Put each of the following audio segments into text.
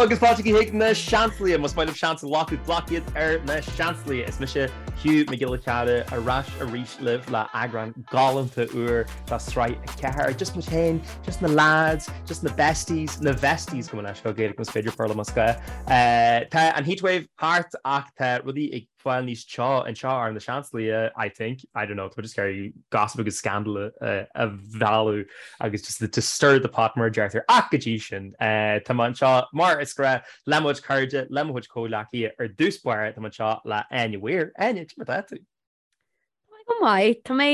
Hello agus fáilte chuig na Seansálaithe! Más maith libh seans a ghlacadh, glac iad ar na Seansálaithe! Is mise Hugh Mac Giolla Chearra ar ais arís libh le eagrán galánta úr de Sraith 4. Just muid féin, just na lads, just na besties, na vesties gabh mo leithscéal Gaeilge más féidir Péarla más gá. Tá an heatwave thart ach tá rudaí ag fáil níos teo anseo ar na Seansálaithe, I think, I don't know, tá mé just ag iarraidh gossip agus scandal a mhealladh agus just to stir the pot mar a deirtear. Ach go dtí sin, tá mé anseo mar is gnách le mo chuid cairde, le mo chuid comhghleacaithe. Ar dtús báire, tá mé anseo le Áine Weir. Áine, cad é mar atá tú? Tá mé go maith. Tá mé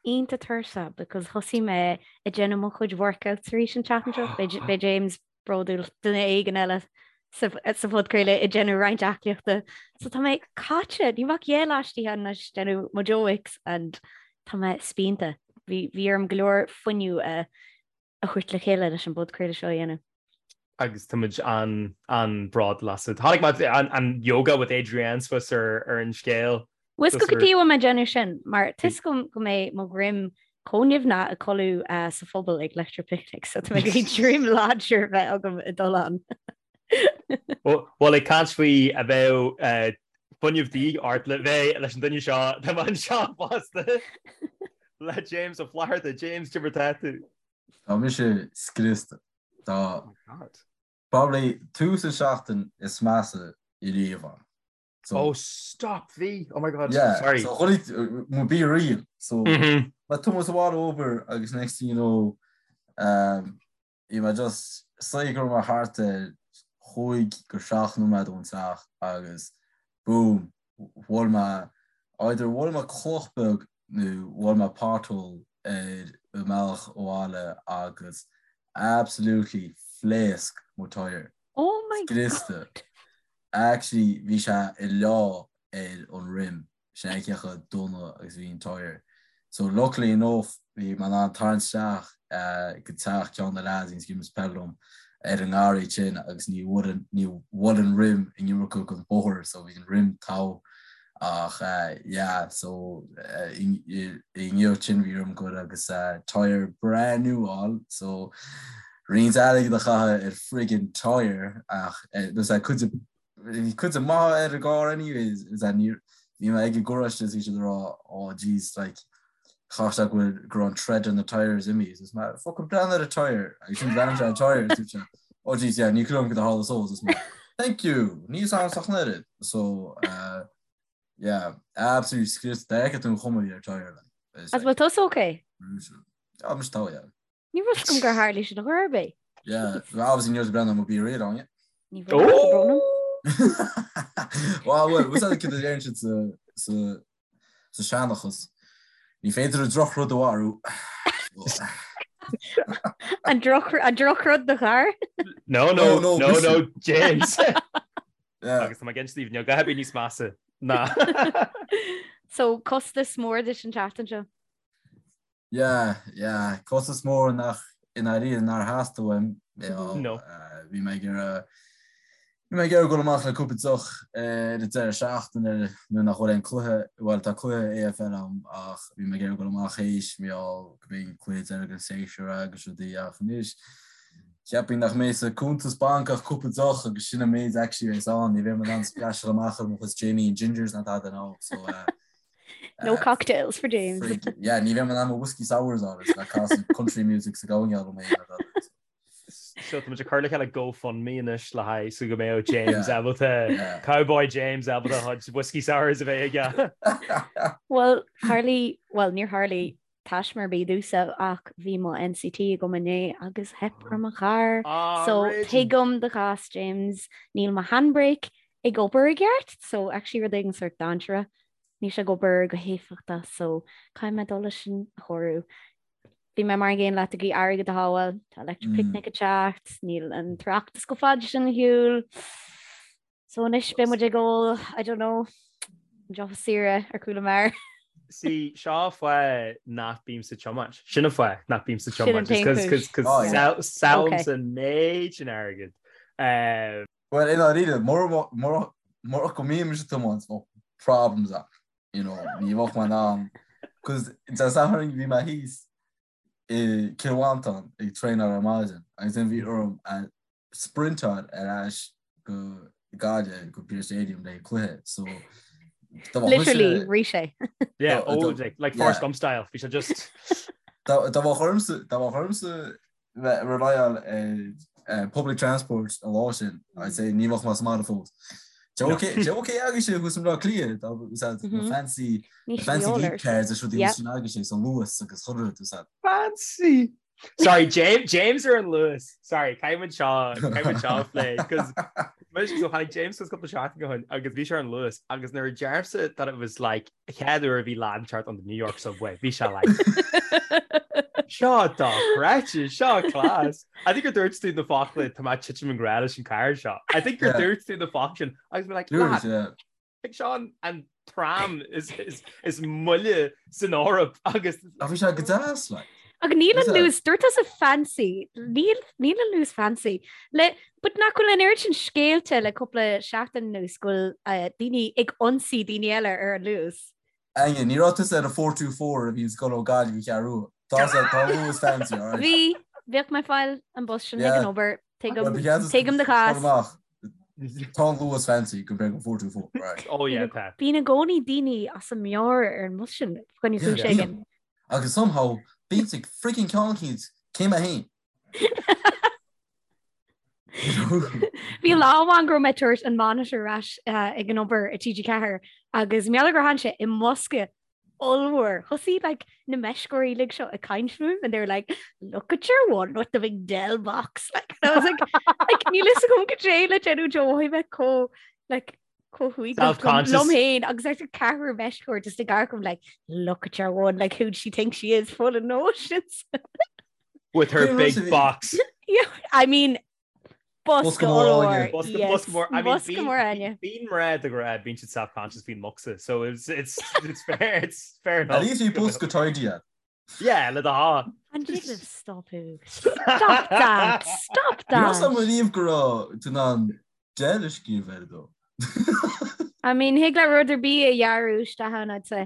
iontach tuirseach because thosaigh mé ag déanamh mo chuid workouts arís an tseachtain seo. Beidh James bródúil duine éigin eile sa phodchraoladh ag déanamh roinnt aclaíochta. So tá mé caite, níl mé ach dhá lá istigh anois ag déanamh mo Joe Wicks and tá mé spíonta. Bhí bhí orm go leor fuinneamh a a thabhairt le chéile leis an bpodchraoladh seo a dhéanamh. Agus tá muid an an-bhródúil asat. Chonaic mé an an yoga with Adriene suas ar ar an scéal. Bhfuil 'fhios agat cad chuige a bhfuil mé ag déanamh sin, mar tá 'fhios agam go mbeidh mo dhroim chomh nimhneach ag codladh sa phuball ag Electric Picnic, so tá mé ag iarraidh droim láidir a bheith agam ag dul ann. Bhuel, ag caint faoi a bheadh fuinneamh de dhíth ort le bheith leis an duine seo, tá mé anseo fosta le James Ó Flatharta. James, cad é mar atá tú? Tá mise scriosta. Tá probably tús an seachtain is measa i riamh ann. So, oh stop bhí oh my god yeah, sorry so chuir mo be real so mm -hmm. mé ag tiomáint abhaile ó obair agus next thing you know um, bhí mé just say go raibh mé thart ar chúig go seacht nóiméad ón teach agus boom bhuail mé either bhuail mé cloch beag nó bhuail mé pothole ar an mbealach abhaile agus absolutely phléasc mo tyre Oh my scriosta god. Actually bhí sé ag leá ar an rim, sin é cé chomh dona agus a bhí an tyre. So luckily enough bhí mé in ann tarraingt isteach go teach ceann de na lads a bhíonns ag imirt peil liom ar an ngarraí sin agus ní bhfuair an ní bhuail an rim an iomarca den bóthar so bhí an rim togha ach yeah so inniu sin bhí orm goil agus tyre breá nua a fháil so Roinnt airgid a chaitheamh ar friggin tyre ach there's that cuid bhí cuid maith ar an gcarr anyways is that ní bhí mé ag an garáiste is bhí siad ag rá oh jeez like chaith sé go bhfuil go raibh an tread on the tyres imithe is mé fucking breathnaigh ar an tyre agus sin bhreathnaigh sé ar an tyre is dúirt sé oh jeez yeah ní clum go tharla so is mé thank you níl a fhios agam ach an oiread so uh, yeah absolutely scriosta d'fheicfeadh tú an chuma a bhí ar tyre like As bhfuil tusa okay? Yeah, mise togha yeah. Ní raibh 'fhios agam gur tharla sin ar chor ar bith. Yeah, well, obviously ní raibh tú ag breathnú ar mo BeReal ann, yeah. Ní raibh tá brón orm. Well, well, what's that kid a deireann siad sa sa sa seanchas? Ní féidir an drochrud a mharú. An droch an drochrud do charr? No, no, No, no, no, mise. no, James. Yeah. Agus tá mé ag inse daoibh, níl a dhath ar bith níos measa ná. So costas mór duit an tseachtain seo. Yeah, yeah, costas mór nach i ndáiríre nár theastaigh uaim. No. Bhí mé ag iarraidh bhí mé ag iarraidh dul amach le cúpla deoch ar an deireadh seachtaine nuair nach bhfuil aon cluiche, bhuel tá cluiche AFL ann ach bhí mé ag iarraidh dul amach théis mar gheall go mbeidh an cluiche deiridh den séasúr agus rudaí ach anois cheapfainn nach mbeidh sa cuntas banc ach cúpla deoch agus sin an méid actually a bheas ann, ní bheidh mé in ann splasháil amach ar mo chuid Jamie and Gingers ná tada now so eh, No cocktails for James. Yeah, ní bheidh mé in ann mo whiskey sours a fháil le casadh country music sa gabhann mé. So tá muid ag cur le chéile GoFundMe anois le haghaidh so go mbeadh James ábalta Cowboy James ábalta a chuid whiskey sours a bheith aige. Well, tharlaigh, well, níor tharlaigh taisme ar bith domhsa ach bhí mo NCT agam inné agus theip ar mo charr. Ah, So raging. tuigim do chás James, níl mo handbrake ag obair i gceart, so actually rud éigin sort dainséarach. Níl sé ag obair go héifeachtach so caithfidh mé dul leis sin a chóiriú. Bhí mé mar an gcéanna leat ag iarraidh airgead a shábháil, tá Electric Picnic ag teacht, níl an tOireachtas chomh fada sin ar shiúl. So anois beidh muid ag ól, I don't know, deoch saoire ar chúl an mbeár. See, seo fáth nach bímse ag tiomáint. Sin an fáth nach bímse Sin an tiomáint. t-aon chúis. Cos Oh, yeah. sábhálaimse an méid sin airgid. Well, i ndáiríre, murach go mbímse ag tiomáint, bheadh problems ann, you know, ní bheadh mé in ann, cos Dé Sathairn bhí mé thíos i Cill Mhantáin ag traenáil ar maidin agus then bhí orm a sprintáil ar ais go Gaillimh go Pearse Stadium le cluiche so Literally rith sé. Yeah, oh, like, like Forrest Gump style, bhí sé just. Dá mbeadh ormsa dá mbeadh ormsa bheith rely ar eh, public transport an lá sin, I'd say ní bheadh mé sa mbaile fós. Sé ok sé ok agus sé thuas i mBleá Cliath tá na mhm. fancy fancy geek cars is rudaí sin agus sé sa Luas agus chuile rud Fancy! Sorry, James, James ar an Luas. Sorry, caithfidh muid seo, caithfidh muid seo a phlé, cos so tháinig James suas cúpla seachtain ó shin agus bhí sé ar an Luas agus nuair a deirimse that it was like chéad uair a bhí lad inteacht on the New York subway, bhí sé like seo dochreidte, seo class. I think gur dúirt tú na focla tá mé ag titim i ngrá leis an carr seo. I think gur dúirt tú na focla sin agus mé like lad, Ag seo an tram is is moille san Eoraip agus. Ach bhí sé go deas like. Ach níl an Luas, dúirt tusa fancy, níl níl an Luas fancy. Le, but nach bhfuil an oiread sin scéalta le cúpla seachtain anuas go bhfuil eh, daoine ag ionsaí daoine eile ar an Luas. Áine, ní raibh tusa ar an 424 a bhíonn ag dul ó Gaillimh go Ceathrú Rua. Tá sé, tá an Luas fancy, alright? Bhí, bhíodh mé ag fáil an bus sin ag an obair, tuigim, tuigim do chás. Amach, tá an Luas fancy compared go 424, right? Oh yeah, tá. Bíonn i gcónaí daoine as a meabhair ar an mbus sin, fá choinne cúis éigin. Agus somehow, bíonn ag freaking ceann eicínt, céim a haon. Bhí lá amháin go raibh mé ag tabhairt an monitor ar ais ag an obair i TG4 agus mar gheall gur tharla sé i mbosca ollmhór. Thosaigh like na meisceoirí uilig seo ag caint fúm and they were like look at your one with the big Dell box like and I was like like níl fhios agam cad é le déanamh Joe mhothaigh mé chomh like chomh huaigneach liom féin agus ar ceathrar meisceoir just ag amharc orm like look at your one like who she thinks she is full of notions. With her big box. Yeah, I mean, Bosca mór. Bosca mór. I mean, bosca mór Áine. Bíonn mná de ghnáth, bíonn siad self-conscious faoin mbocsa, so it's, it's, it's fair, it's fair enough. At least bhí bosca tidy agat. Yeah, le do shá. An dtig libh stopadh? Stop that! Stop that! Ní raibh a fhios agam riamh go raibh tú in ann Dell a scríobh air dó. I mean, thig le rud ar bith a ghearradh isteach ann, I'd say.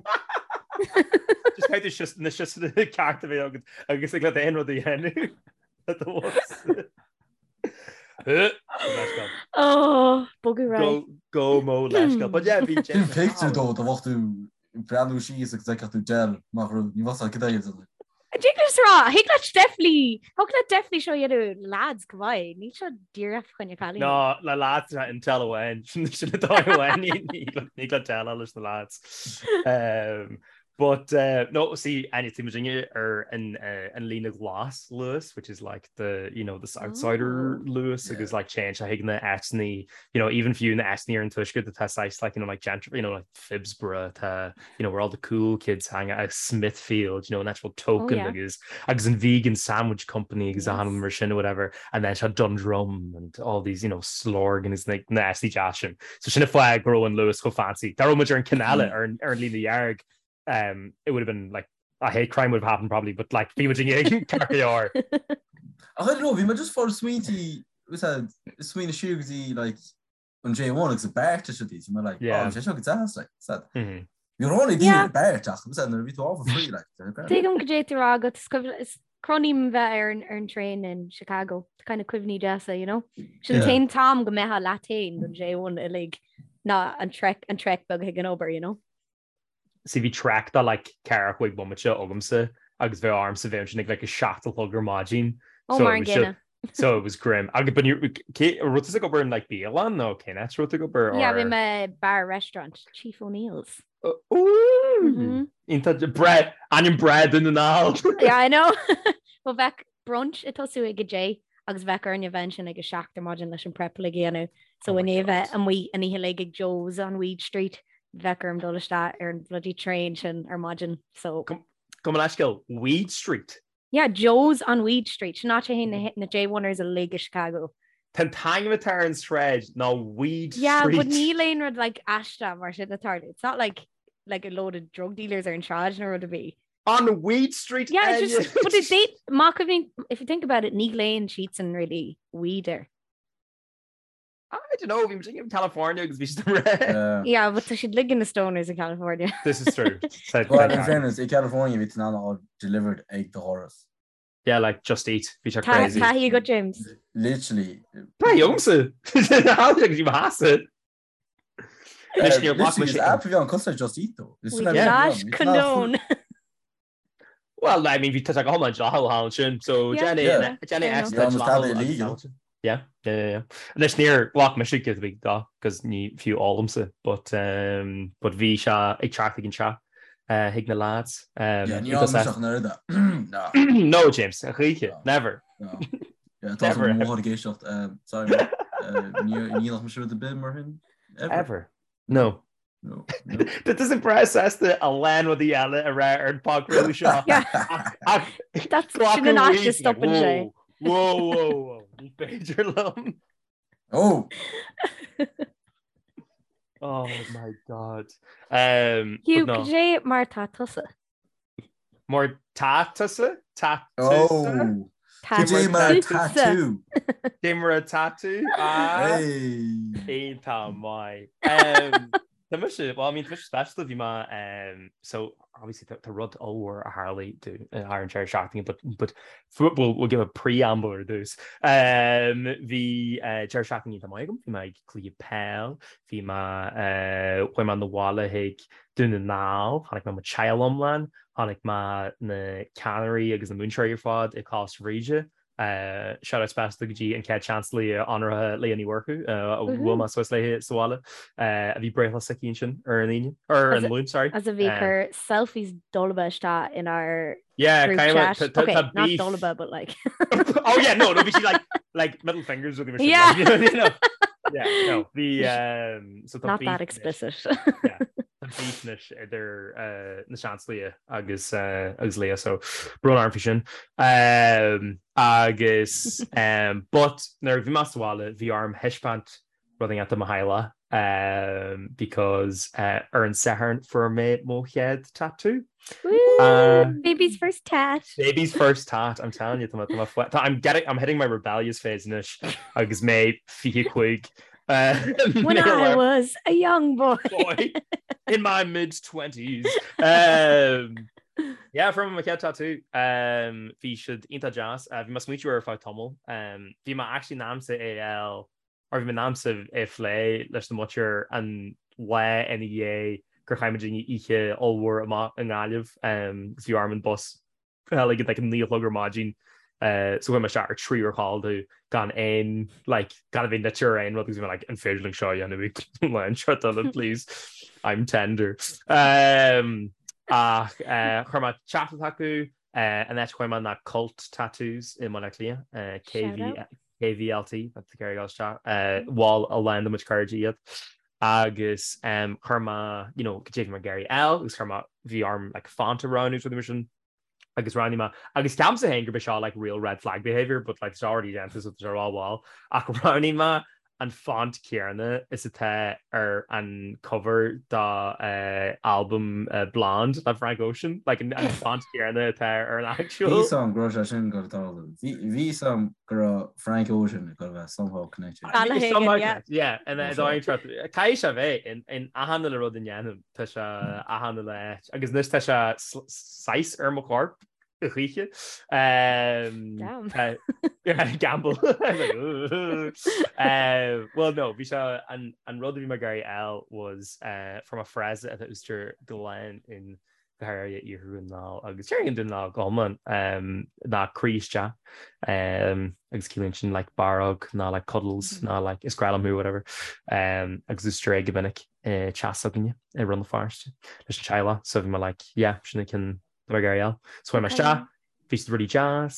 Just caithfidh tú na siosanna ceart a bheith agat agus thig leat aon rud a dhéanamh le do bhosca. Oh, bogadh ar aghaidh. Go mó leithscéal. But yeah, bhí Sin picture dó, dá mbeadh tú ag breathnú síos agus d'fheicfeadh tú Dell amach romhat, ní bheadh cad é a dhéanamh. Thig leat rá, thig leat definitely, thig leat definitely seo a dhéanamh lads go maith, níl seo díreach fá choinne cailíní. No, le lads tá Intel amháin, sin an dóigh amháin, ní thig le Dell leis na lads. Um, but uh, no, see, Áine, tá muidinne ar an, uh, an líne ghlas Luas, which is like the, you know, the Southsider oh. Luas, agus like téann sé chuig na áiteanna, you know, even fiú na áiteanna ar an tuaisceart atá saghas like, you know, like gentry, you know, like Phibsborough tá, you know, where all the cool kids hang out, Smithfield, you know, an actual token oh, yeah. agus agus an vegan sandwich company agus yes. mar sin or whatever, and then tá Dundrum and all these, you know, Slorgan is like na áiteanna deasa sin. So sin an fáth go raibh an Luas chomh fancy. Dá raibh muid ar an ceann eile ar an ar an líne dhearg, um, it would have been like a hate crime would have happened probably, but like bhí muid in ceart go leor. Ach I don't know, bhí mé just ag smaointiú smaoineamh siar go dtí like an J1 agus an BART is rudaí, so mé like, oh, sé seo go deas, like, said. Bhí rá daoine ar BART ach, said, nuair a bhí tú ábhar free, like, Tuigim cad é tá á rá agat, is cuimhin- is cronaím bheith ar an ar an traein in Chicago, kind of cuimhní deasa, you know? Sin an t-aon t-am go mbeifeá leat féin don J1 uilig ná an trek an trek beag chuig an obair, you know? See bhí trek de like ceathracha cúig bomaite agamsa agus bheadh ormsa bheith ansin ag like a 7 a chlog ar maidin. Oh mar an gcéanna. So it was grim. Agus but cé raibh tú ag obair in like bialann nó cén áit raibh tú ag obair Yeah, bhí mé bar restaurant, Chief O'Neill's. Ooh! Iontach breá ainm breá Dún na nGall. Yeah, I know. Well bheadh brunch ag tosú ag a deich agus bheadh orainn a bheith ansin ag a 7 ar maidin leis an prep uilig a dhéanamh. So i ndiaidh a bheith amuigh an oíche uilig ag Joe's on Weed Street, bheadh orm dul isteach ar an bloody train sin ar maidin. So. Gabh mo leithscéal, Weed Street? Yeah, Joe's on Weed Street. Sin áit a théann na J1ers uilig i Chicago. Tá an t-ainm atá ar an sráid ná Weed Street. Yeah, but níl aon rud like aisteach mar sin ag tarlú. It's not like like a load of drug dealers ar an sráid nó rud ar bith. On Weed Street Yeah, it's just, but if they, má cuimhníonn, if you think about it, ní ghlaonn siadsan really weed air. I don't know, bhí muid in California agus bhí siad ag rá. Yeah, but tá siad uilig ina stoners in California. This is true. Well, in fairness, i California bhí tú in ann a fháil delivered ag do dhoras. Yeah, like Just Eat, bhí sé crazy. Taithí agat James. Literally. Taithí agamsa. Thaithí go dtí mo sheasamh. Anois níor ghlac mise. App a bhí ann cosúil le Just Eat though. We do not condone. Well, I mean, bhí tá go hiomlán dleathach thall ansin, so déan é déan é Yeah, tá illegal. Yeah, yeah, yeah, yeah. Anois níor ghlac mise giota beag dó, cos ní fiú ólaimse, but um, but bhí sé ag teacht ag an teach uh, chuig na lads. Um, Yeah, ní raibh mise ach an oiread. No. No, James, a choíche, No. never. No. Yeah, tá Never. mo mháthair ag éisteacht. um, Sorry, ma. Uh, ní ní nach mise rud ar bith mar sin. Ever. Ever. No. No. No. Tá tusa breá sásta a lán rudaí eile a rá ar an bpodchraoladh seo. Yeah. Ach That's glacadh sin an áit a arís, like, stopann sé. Whoa, whoa, whoa, ní féidir liom. Oh! Oh my God. Um, Hugh, but no. cad é mar tá tusa? Mar tá tusa? Tá tusa? Oh! Tá Cad é mar tusa. tá tú? Cad é mar atá tú? Ah, Hey! Iontach maith. Um, Tá mise, well, I mean, tá mise speisialta, bhí mé, um, so, obviously, tá tá rud ollmhór a tharlaigh do thar an deireadh seachtaine, but, but we'll, we'll give a preamble ar dtús. Um, bhí uh, deireadh seachtaine iontach maith agam, bhí mé ag cluiche peil, bhí mé, uh, chuaigh mé 'na bhaile chuig Dún na nGall, chonaic mé mo teaghlach iomlán, chonaic mé na ceannairí agus na múinteoirí ar fad i Coláiste Bhríde. Shout out speisialta go dtí an chéad Seansalaí onóracha Leah Ní Mhurchú a bhuail mé suas léi sa bhaile, a bhí breithlá s'aici ansin ar an Aoine, ar an Luan, sorry. As a bhí ag cur selfies dolba isteach inár Yeah, group kind of, chat. tá Okay, tá not beef. dolba, but like. Oh yeah, no, no, bhí sí like, like middle fingers with the Yeah. you know. Yeah, no, bhí um, so tá Not beef that anois. explicit. Yeah, tá beef anois idir uh, na Seansalaithe agus uh, agus Leah, so brón orm faoi sin. Um, agus um, but nuair a bhí mé sa bhaile, bhí orm thaispeáint rud inteacht do mo theaghlach um, because uh, ar an Satharn fuair mé mo chéad tattoo. Woo! Uh, Baby's first tat. Baby's first tat, I'm telling you, tá mé- tá mé fle- tá- I'm getting, I'm hitting my rebellious phase anois agus mé 25. Uh, When I was a young boy. boy in my mid 20s. Um, yeah, fuair mé mo chéad tattoo. Um, bhí siad iontach deas. Uh, bhí mé ag smaointiú air ar feadh tamaill. Um, bhí mé actually in aimsa é a fháil or bhí mé in aimsa é a phlé leis na muintir an lá ina dhiaidh gur chaith muid oíche ollmhór amach i nGaillimh agus bhí orm an bus a fháil ag like 9 a chlog ar maidin so chuaigh mé isteach ar 3 uair chodlata gan aon like gan a bheith nite ar aon rud agus bhí mé like an féidir linn seo a dhéanamh ag lá an seo eile please I'm tender. Um, ach uh, chuir mé teachtaireacht chucu An áit a chuaigh mé ná Cult Tattoos i mBaile Átha Cliath, KV, KVLT, tá tú ag iarraidh dul isteach, bhuel a lán de mo chuid cairde iad. Agus chuir mé, you know, cad é a bhí mé ag iarraidh a fháil agus chuir mé, bhí orm like font a roghnú is rudaí mar sin agus roghnaigh mé, agus ceapaimse féin gurb é seo like real red flag behaviour but like it's already déanta so tá sé rómhall ach roghnaigh mé an font céanna is atá ar an cover dá albam Blonde le Frank Ocean, like an font céanna atá ar an actual. Bhí a fhios agam go raibh sé sin ag tarlú. Bhí a fhios agam go raibh Frank Ocean ag dul a bheith somehow connected. Somehow connected, yeah. And then caithfidh sé bheith in achan uile rud a ndéanaim, tá sé achan uile áit. Agus anois tá sé saghas ar mo chorp. Choíche. Damn. Gamble. Well no, bhí sé an an rud a bhí mé ag iarraidh a fháil was fuair mé frása atá úsáidte go lán in go háirithe iarthar Dhún na nGall agus déarfainn Dún na nGall go hiomlán ná croí isteach agus ciallaíonn sin like barróg ná like cuddles ná like is grá liom thú whatever agus úsáidtear é go minic i teach s'againne i Rann na Feirste leis an teaghlach so bhí mé like yeah sin an ceann ag iarraidh a fháil. So chuaigh mé isteach, bhí siad really deas,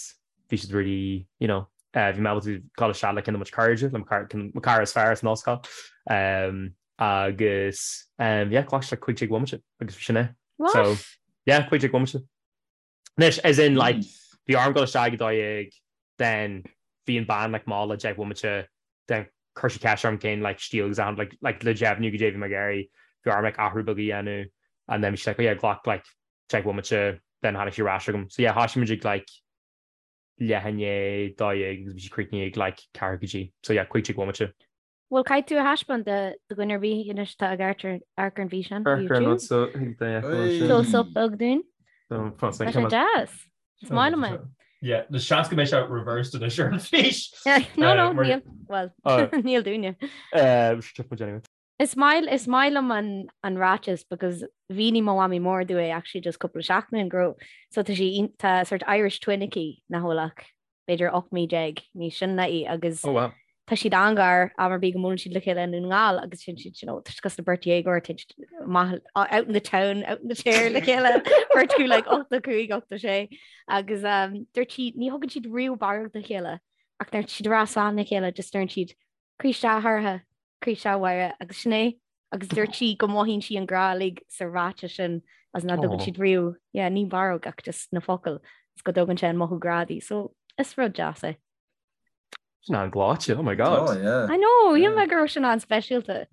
bhí siad really, you know, bhí mé ábalta dul isteach le ceann de mo chuid cairde, le mo chara is fearr as an ollscoil. Um, agus, um, yeah, ghlac sé like 15 bhomaite agus bhí sin é. What? So, yeah, 15 bhomaite. Anois, as in, like, bhí orm dul isteach ag 12, then bhí an bean like mall le 10 bhomaite, then chuir sí ceist orm cén like stíl agus achan like, like le deimhniú goidé a bhí mé ag iarraidh, bhí orm like athrú beag a dhéanamh, and then bhí sí like, oh yeah, ghlac like 10 bhomaite, then tháinig sí ar ais chugam. So yeah, thoisigh muid ag like leath i ndiaidh 12 agus bhí sí críochnaithe ag like ceathrú go dtí. So yeah, 15 bhomaite. Bhuel, caithfidh tú a thaispeáint do dhuine ar bith anois atá ag amharc ar an bhfíseán Amharc ar an rud YouTube. so thig duine a fheiceáil ansin. Close up beag dúinn. So, fós, Tá sé deas. Is maith liom é. Yeah, na seans go mbeidh sé reversed anois ar an bhfís. No, no, níl, well, níl dúinne. Anyway. Is maith is maith liom an an ráiteas because mhínigh mo mhamaí mór domh é actually just cúpla seachtain go raibh so tá sí tá sort Irish twin aici nach bhfuil ach b'fhéidir 18 mí níos sine ná í agus Oh wow. tá siad an-ghar am ar bith go mbuaileann siad le chéile i nDún na nGall agus sin siad you know tá siad cosúil le beirt dhéagóir tá siad amach out in the town out in the chair le chéile beirt acu like 85 86 agus um, dúirt sí ní thugann siad riamh barróg dá chéile ach nuair atá siad ag rá slán le chéile just deireann siad Croí isteach a Shorcha, croí isteach a Mháire agus sin é. Agus dúirt sí go mothaíonn sí an grá uilig sa ráiteas sin as nach dtugann siad riamh, yeah, ní barróg ach just na focail is go dtugann sé an mothú grá di. So is rud deas é. Sin an-ghleoite, oh my god. Oh yeah. I know, shíl mé go raibh sin an-speisialta.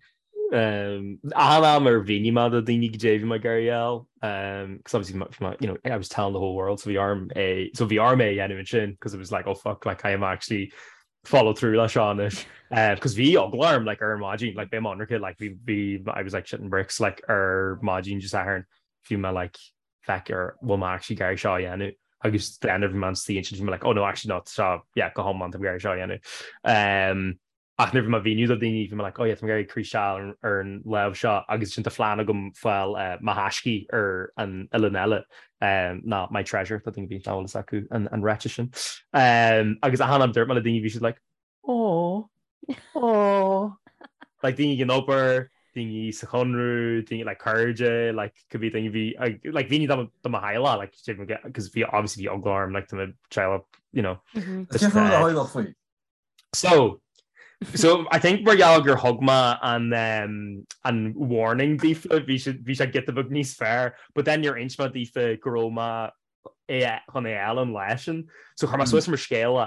Um, achan am ar mhínigh mé do daoine goidé bhí mé ag iarraidh a fháil, um, cos obviously bhí mé, you know, I was telling the whole world, so bhí orm é, so bhí orm é a dhéanamh ansin, cos it was like, oh fuck, like I am actually follow through leis seo anois. Um, cos bhí eagla orm, like, ar an maidin, like, beidh mé ionraic, like, bhí, bhí, I was like shitting bricks, like, ar maidin Dé Sathairn, bhí mé like, feck ar bhfuil mé actually ag iarraidh seo a dhéanamh. Agus then bhí mé istigh ansin, bhí mé like, oh no, actually no, seo, yeah, go hiomlán, tá mé ag iarraidh seo a dhéanamh. Um, Ach nuair a bhí mé ag mhíniú do daoine, bhí mé like, oh yeah, tá mé ag iarraidh croí isteach ar an lámh seo agus ansin tá phlean agam fáil mo thaiscí ar an uillinn eile, ná my treasure, tá daoine a bhí nach bhfuil fhios acu an ráiteas sin. Agus achan am dúirt mé le daoine, bhí siad like, oh, oh. Like daoine ag an obair, daoine sa Chonradh, daoine like cairde, like cibé daoine bhí, like mhínigh do do mo theaghlach, like, because bhí obviously bhí eagla orm, like do mo teaghlach, you know. Cén fáth a theaghlach faoi? So, so I think mar gheall gur thug mé an um, an warning daofa, bhí sé bhí sé giota beag níos fearr, but then níor inis mé daofa go raibh mé é chun é a fháil an lá sin. So chuir mé suas mar scéal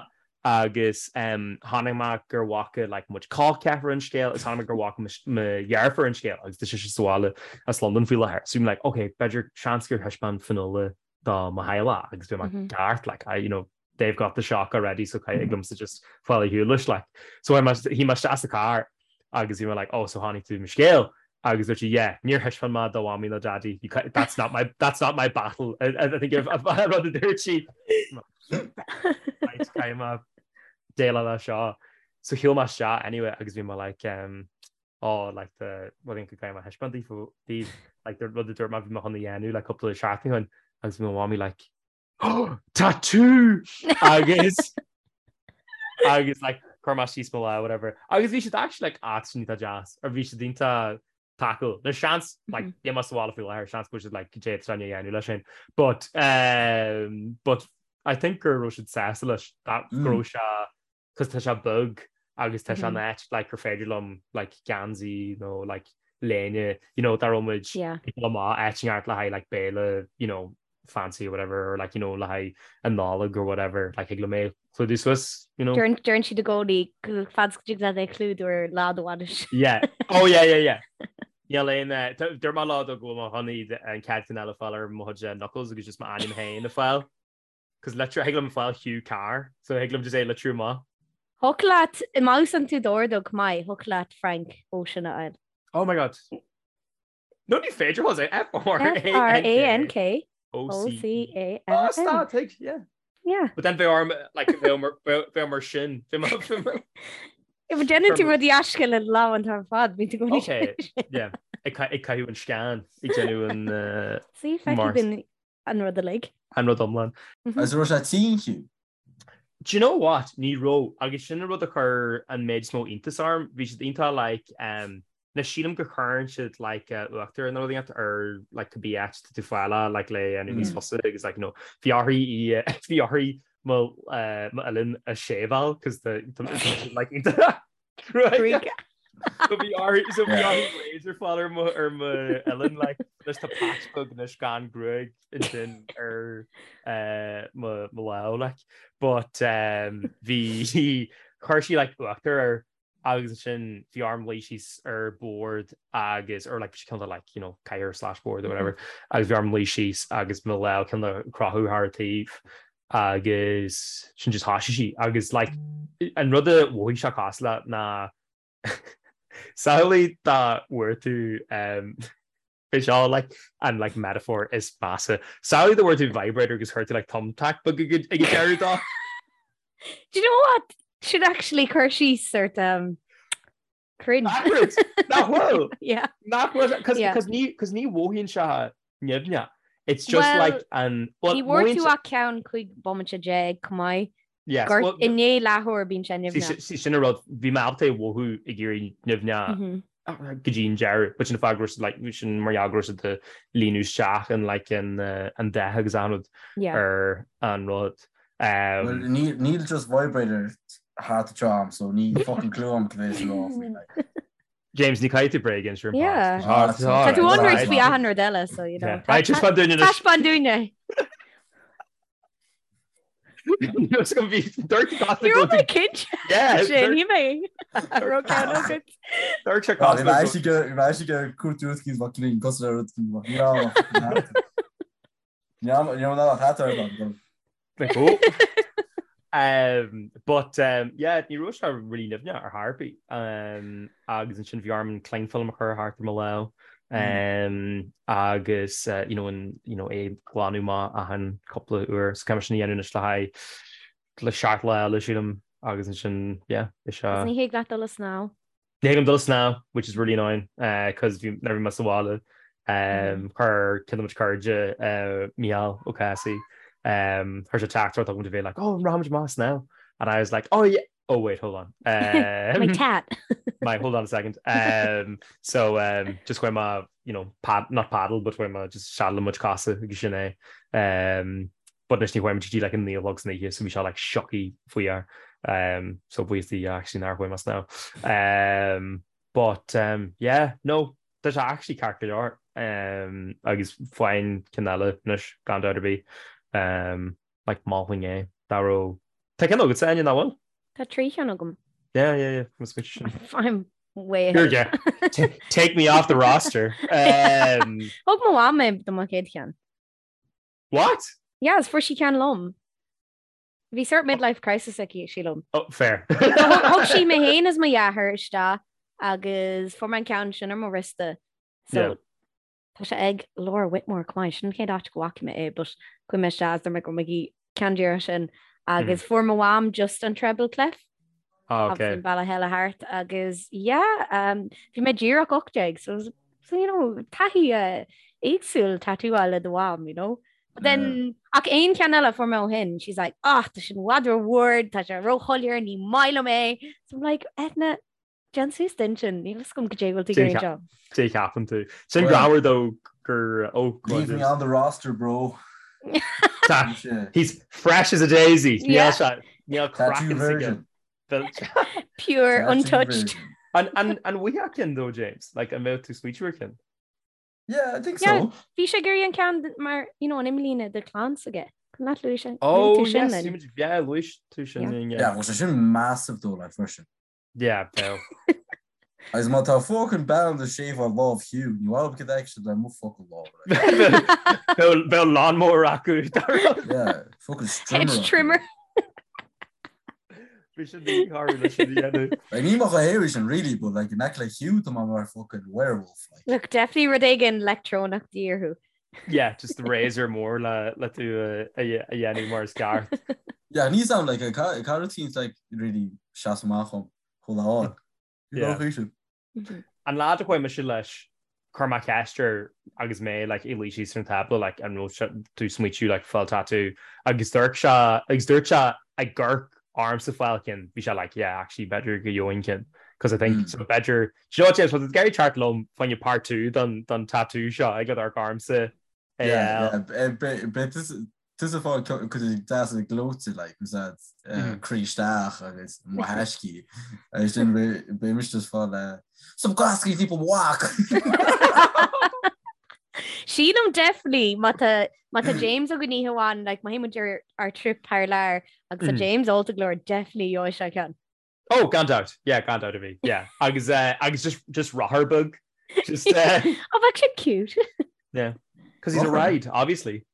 agus um, chonaic mé gur bhfaca like, muid col ceathrar an scéal is chonaic mé gur bhfaca mo dheirfiúr an scéal agus tá sise sa bhaile as Londain faoi láthair. So bhí mé like, okay, b'fhéidir seans gur thaispeáin Fionnuala do mo theaghlach agus bhí mé ceart, like, I, you know, they've got the shock already so thig liomsa just fáil ar shiúl leis like. So shuigh mé isteach sa carr agus bhí mé like oh so chonaic tú mo scéal agus dúirt sí yeah níor thaispeáin mé do mhamaí nó daidí that's not my that's not my battle I, I think if rud a dúirt sí caithfidh mé déileáil leis seo. So shiúil mé isteach anyway agus bhí mé like um, oh like the rud go gcaithfidh mé a thaispeáint daoibh like the rud a dúirt mé bhí mé chun a dhéanamh like cúpla seachtain ó shin agus bhí mo mhamaí like Tattoo! Agus agus like chuir mé síos mo lámh whatever. Agus bhí siad actually like ah sin iontach deas or bhí siad iontach tacúil. There's seans like níl mé sa bhaile faoi láthair seans go bhfuil siad like goidé atá sé a dhéanamh leis sin. But um, but I think go raibh siad sásta leis that go raibh sé cos tá sé beag agus tá sé in áit like gur féidir liom like geansaí nó like léine you know dá raibh muid ag dul amach áit inteacht le haghaidh like béile you know fancy or whatever or like you know le haghaidh an Nollaig or whatever like thig liom é a chlúdú suas you know. Deireann siad i gcónaí go fad is go dtig leat é a chlúdú ar lá do bhainise. Yeah oh yeah yeah yeah. Níl aon eh, dúirt mé lá dó go bhfuil mé chun iad an chéad cheann eile a fháil ar mo chuid eh, knuckles agus just m'ainm féin a fháil. Cos litriú, thig liom fáil Hugh Carr, so thig liom just é litriú amach. Thiocfadh leat, má úsáideann tú d'ordóg maith, thiocfadh leat Frank Ocean a fháil. Oh my god. No ní féidir Jose, F-R-A-N-K. F-R-A-N-K. O-C-A-N. Oh, stop, tig, yeah. Yeah. But then bheadh orm, like, bheadh mar sin. Bheadh mar... If déanann tú rudaí aisteacha le do lámha an t-am ar fad, bíonn tú i gcónaí. Okay, yeah. Ag caitheamh an scan, ag déanamh an... See, feicfidh duine an rud uilig. An rud iomlán. Agus raibh sé tinn Hugh? Do you know what? Ní raibh. Agus sin an rud a chuir an méid is mó iontas orm. Bhí siad iontach like um na sílim go chuireann siad like uh, uachtar nó rud inteacht ar like cibé áit tá tú fáil like le dhéanamh níos fusa agus like you know bhí orthu í bhí orthu mo uh, mo uillinn a shave-áil cos the like iontach Right. So bhí orthu so bhí orthu razor fáil ar mo ar mo uillinn like anois tá patch beag anois gan gruaig ansin ar eh, mo mo lámh like but um, bhí chuir sí like uachtar air agus ansin bhí orm luí síos ar bord agus or like bhí sé cineál de like you know cathaoir slash board or whatever agus bhí orm luí síos agus mo lámh cineál de crochadh thar a taobh agus sin just thoisigh sí agus like an rud a mhothaigh sé cosúil le ná samhlaigh dá bhfuair tú um, Bhí seo like an like metaphor is measa. Samhlaigh dá bhfuair tú vibrator agus chuir tú like thumbtack beag ag an deireadh dó. Do you know what? Sin actually cur síos sort um, cringe. Nach bhfuil? Nach bhfuil? Yeah. Nach bhfuil? Cos Yeah. cos ní cos ní mhothaíonn sé nimhneach. It's just Well, like an well Ní bhfuair mothaíonn tú sé ach ceann 15 bomaite chomh maith. Yes, Gort well i ndiaidh leathuair bíonn sé nimhneach. See sin an rud, bhí mé ábalta é a mhothú ag éirí nimhneach go dtí an deireadh, but sin an fáth go raibh siad like, sin mar gheall go raibh siad ag líonadh isteach an like an an dath agus an rud ar an rud. Well níl níl just vibrator thart anseo a'm so níl fucking clue a'm cad é is rá faoi like. James, ní caithfidh tú bréag a inse ar an Yeah. pod. Tá tú Right. ionraic faoi achan rud eile, so you know. Yeah. Right, just fan dúinne anois. Taispeáin dúinne. Dúirt Ní raibh mé cinnte. Yeah, Sin ní mé. Raibh ceann agat. Dúirt sé Bhí mé actually go bhí mé actually go cuartú rud cinn bheadh clean cosúil le rud cinn bheadh ní raibh ní raibh ní raibh ná hat ar an Like, oh. Um, but um, yeah, ní raibh sé really nimhneach ar chor ar bith. Um, agus ansin bhí orm an cling film a chur thart ar mo lámh. Um, agus uh, you know, an, you know, é glanadh amach achan cúpla uair. So caithfidh mé sin a dhéanamh anois le haghaidh le seacht lá eile sílim agus ansin yeah, is Agus uh, ní thig leat dul ag snámh. Ní thig liom dul ag snámh, which is really annoying, cos bhí, nuair a bhí mé sa bhaile, chuir ceann de mo chuid cairde, Mícheál Ó Cathasaigh, chuir sé teachtaireacht chugam de bheith like, oh, an rachaimid amach ag snámh? And I was like, oh yeah, oh wait, hold on. My tat. My, hold on a second. So, just chuaigh mé, you know, pad, not paddle, but chuaigh mé just sealadh mo chuid cosa agus sin é. But anois ní chuaigh muid go dtí like an 9 a chlog san oíche so bhí sé like siocthaí faoi air. Um, so buíochas do Dhia actually nár chuaigh mé ag snámh. Um, but um, yeah, no, tá sé actually ceart go leor. Um, agus faighim ceann eile anois gan dabht ar bith. Um, like mholfainn é. Dá raibh Tá ceann agat Áine nach bhfuil? Tá trí cheann agam. Yeah, yeah, yeah. Mas muid sin. I'm way Here, ahead. yeah. Take me off the roster. Um, Thug mo mham é do mo chéad cheann. What? Yeah, is fuair sí ceann liom. Bhí sort midlife crisis aici, sílim. Oh, fair. Thug sí mé féin is mo dheartháir isteach agus fuair mé an ceann sin ar mo wriosta. So Yeah. tá sé ag Laura Whitmore chomh maith, sin an chéad áit go bhfaca mé é, but chuaigh mé isteach is dúirt mé go raibh mé ag iarraidh ceann díreach sin agus fuair mo mham just an treble clef. Ah, Agus okay. an bealach eile thart agus yeah, um, bhí mé díreach 18 so, so you know, taithí uh, éagsúil tattoo a fháil le do mham, you know. But then ach aon cheann eile fuair mé ó shin, she's like, ah, tá sin i bhfad rómhór, tá sé róshoiléir, ní maith liom é. So I'm like, Edna, déan suas d'intinn, níl fhios agam goidé bhfuil tú ag iarraidh anseo. Dé cheapann tú. Sin Well- greannmhar though gur oh, go on, Leave me James. on the roster, bro. Tá- He's fresh as a daisy. Níl Yeah. sé- níl Tattoo craiceann s'aige. virgin. Pure, Tattoo untouched. virgin. An an an bhfuigheadh ceann though, James? Like an mbeadh tú smaoitiú ar cheann? Yeah, I think Yeah. so. Bhí sé ag iarraidh an ceann mar, you know, an imlíne de chlann s'aige. An leat luaigh sé- Oh, luaigh tú sin yes, linn. bhí muid- yeah, luaigh tú sin Yeah. linn, yeah. Yeah, bhuel sé sin massive though, like freisin. Yeah, beo. Agus má tá fucking bean do shave-áil lámh Hugh, ní bhfuil cad é le mo fucking lámh. like. Bheadh bheadh lawnmower acu. Yeah, fucking strimmer. Hedge trimmer. Bhí sin míchearú leis sin a dhéanamh. Like, ní mo thaobh sin really, but like in aice le Hugh tá mé mar fucking werewolf. Like. Look, definitely rud éigin leictreonach de dhíth orthu. Yeah, just the razor mór le le tú a a a dhéanamh mar is ceart. Yeah, ní sam like ca ca rutín like really seas amach chum chomh lá. Yeah. Mhm. An lá a chuaigh mise leis chuir mé ceist air agus mé like ag luí síos ar an tábla like an raibh sé- tú smaoitiú like fáil tattoo agus dúirt sé agus dúirt sé ag amharc ormsa fáil ceann bhí sé like yeah actually b'fhéidir go gheobhainn ceann because I think Mm. so b'fhéidir do you know what James was ag iarraidh teacht liom fá choinne part 2 don don tattoo seo ag amharc ormsa Yeah, yeah, beidh tusa fáil cuid deas gleoite like was that croí isteach agus mo thaiscí agus sin beidh mise just fáil some gascaí people walk. Sílim definitely má tá má tá James againn oíche amháin like má théann muid ar ár trip thar lear agus tá James ólta go leor definitely gheobhaidh sé ceann. Oh, gan dabht. Yeah, gan dabht a bhí. Yeah. Agus, uh, agus just, just rothar beag. Just, uh, Oh, bheadh sé cute. yeah. Because he's a Rothar. ride, obviously.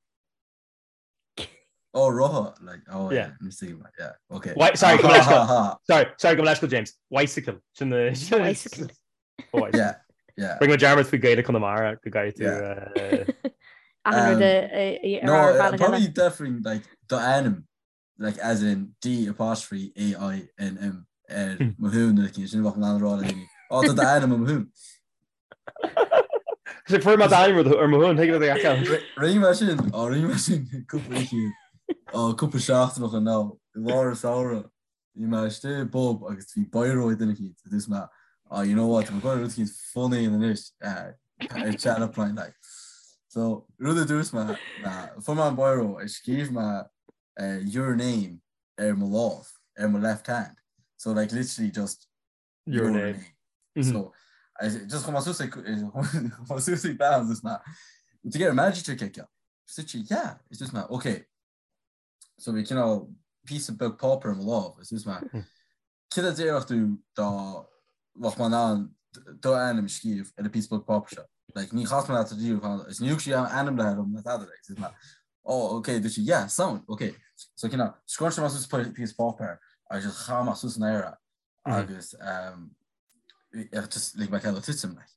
Oh rotha like oh Yeah. yeah, let me see yeah okay. Why, sorry, Ha, come ha, ha. Sorry, sorry, gabh mo leithscéal, James. Bicycle. Sin the Bicycle. Oh, bicycle. Yeah. Yeah. Rinne mé dearmad faoi Gaeilge Chonamara go gcaithfidh tú. Achan rud a No, rá ar bhealach eile. probably definitely like do ainm like as in D apostrophe A I N M ar mo thún nó sin bheadh mé in ann a rá le daoine. Ó tá do ainm ar mo thún. Sé fuair mé d'ainm ar mo thún, thuig le do Rinne mé sin, ó rinne mé sin cúpla oíche, ó cúpla seachtain ó shin now, i lár an samhradh, bhí mé istigh i bpub agus bhí biro ag duine eicínt, agus dúirt mé, oh you know what, tá mé ag goil rud eicínt funny a dhéanamh anois, ar chat up line like. So rud a dúirt mé ná, fuair mé an biro agus scríobh mé your name ar mo lámh, ar mo left hand. So like literally just your name. So I just chuaigh mé suas ag chuaigh mé suas ag bean agus mé to get a magic trick aici. Dúirt sí yeah, is dúirt mé okay. So bhí cineál píosa beag páipéir i mo lámh is dúirt mé céard a déarfadh tú dá mbeadh mé in ann do ainm a scríobh ar an píosa beag páipéir seo. Like ní chas mé leat riamh is ní thug sí ainm le dom ná tada like dúirt mé oh okay dúirt sí yeah sound okay. So cineál scrunch mé suas píosa páipéir agus just chaith mé suas in aer é agus just lig mé cead dó titim like.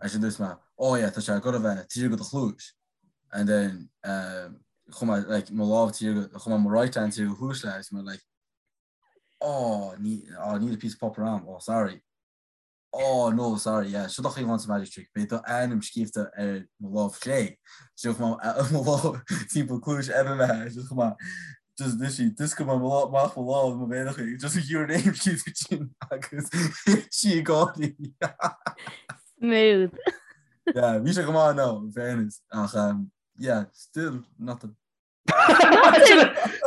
Agus dúirt mé oh yeah tá sé ag goil a bheith taobh thiar de do chluais and then chuaigh mé like mo lámh taobh thiar chuaigh mé mo right hand taobh thiar de chluais léi agus mé like oh ní oh níl píosa páipéir a'm oh sorry oh no sorry yeah seo do chaoi an magic trick beidh do ainm scríobhta ar mo lámh chlé so chuaigh mé mo lámh timpeall cluais eile léi just chuaigh mé just literally d'oscail mé amach mo lámh mo mhéar chuig just your name scríobhta sin agus sí ag gáirí Smooth. Yeah, bhí sé go maith no, in fairness ach um, yeah, still nothing.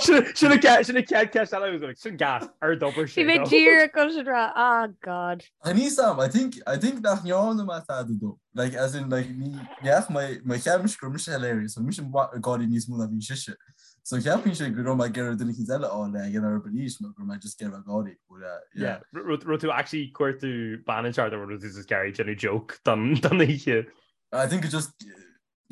Sin an chéad cheist eile sin gas ar d'obair sé. Bhí mé díreach chun sin rá ah God. Níl 's a'm, I think I think nach ndearna mé tada dó. Like as in like ní neach mé mé cheap mise go raibh mise hilarious, so mise ag gáirí níos mó ná bhí sise. So cheapfainnse go raibh mé ag iarraidh duine eicínt eile a fháil le ag an arís nó go raibh mé just ag iarraidh gáirí. But uh, yeah. Yeah, raibh tú actually cuartú bean an nó raibh tú just ag iarraidh déanamh joke don don oíche. I think it just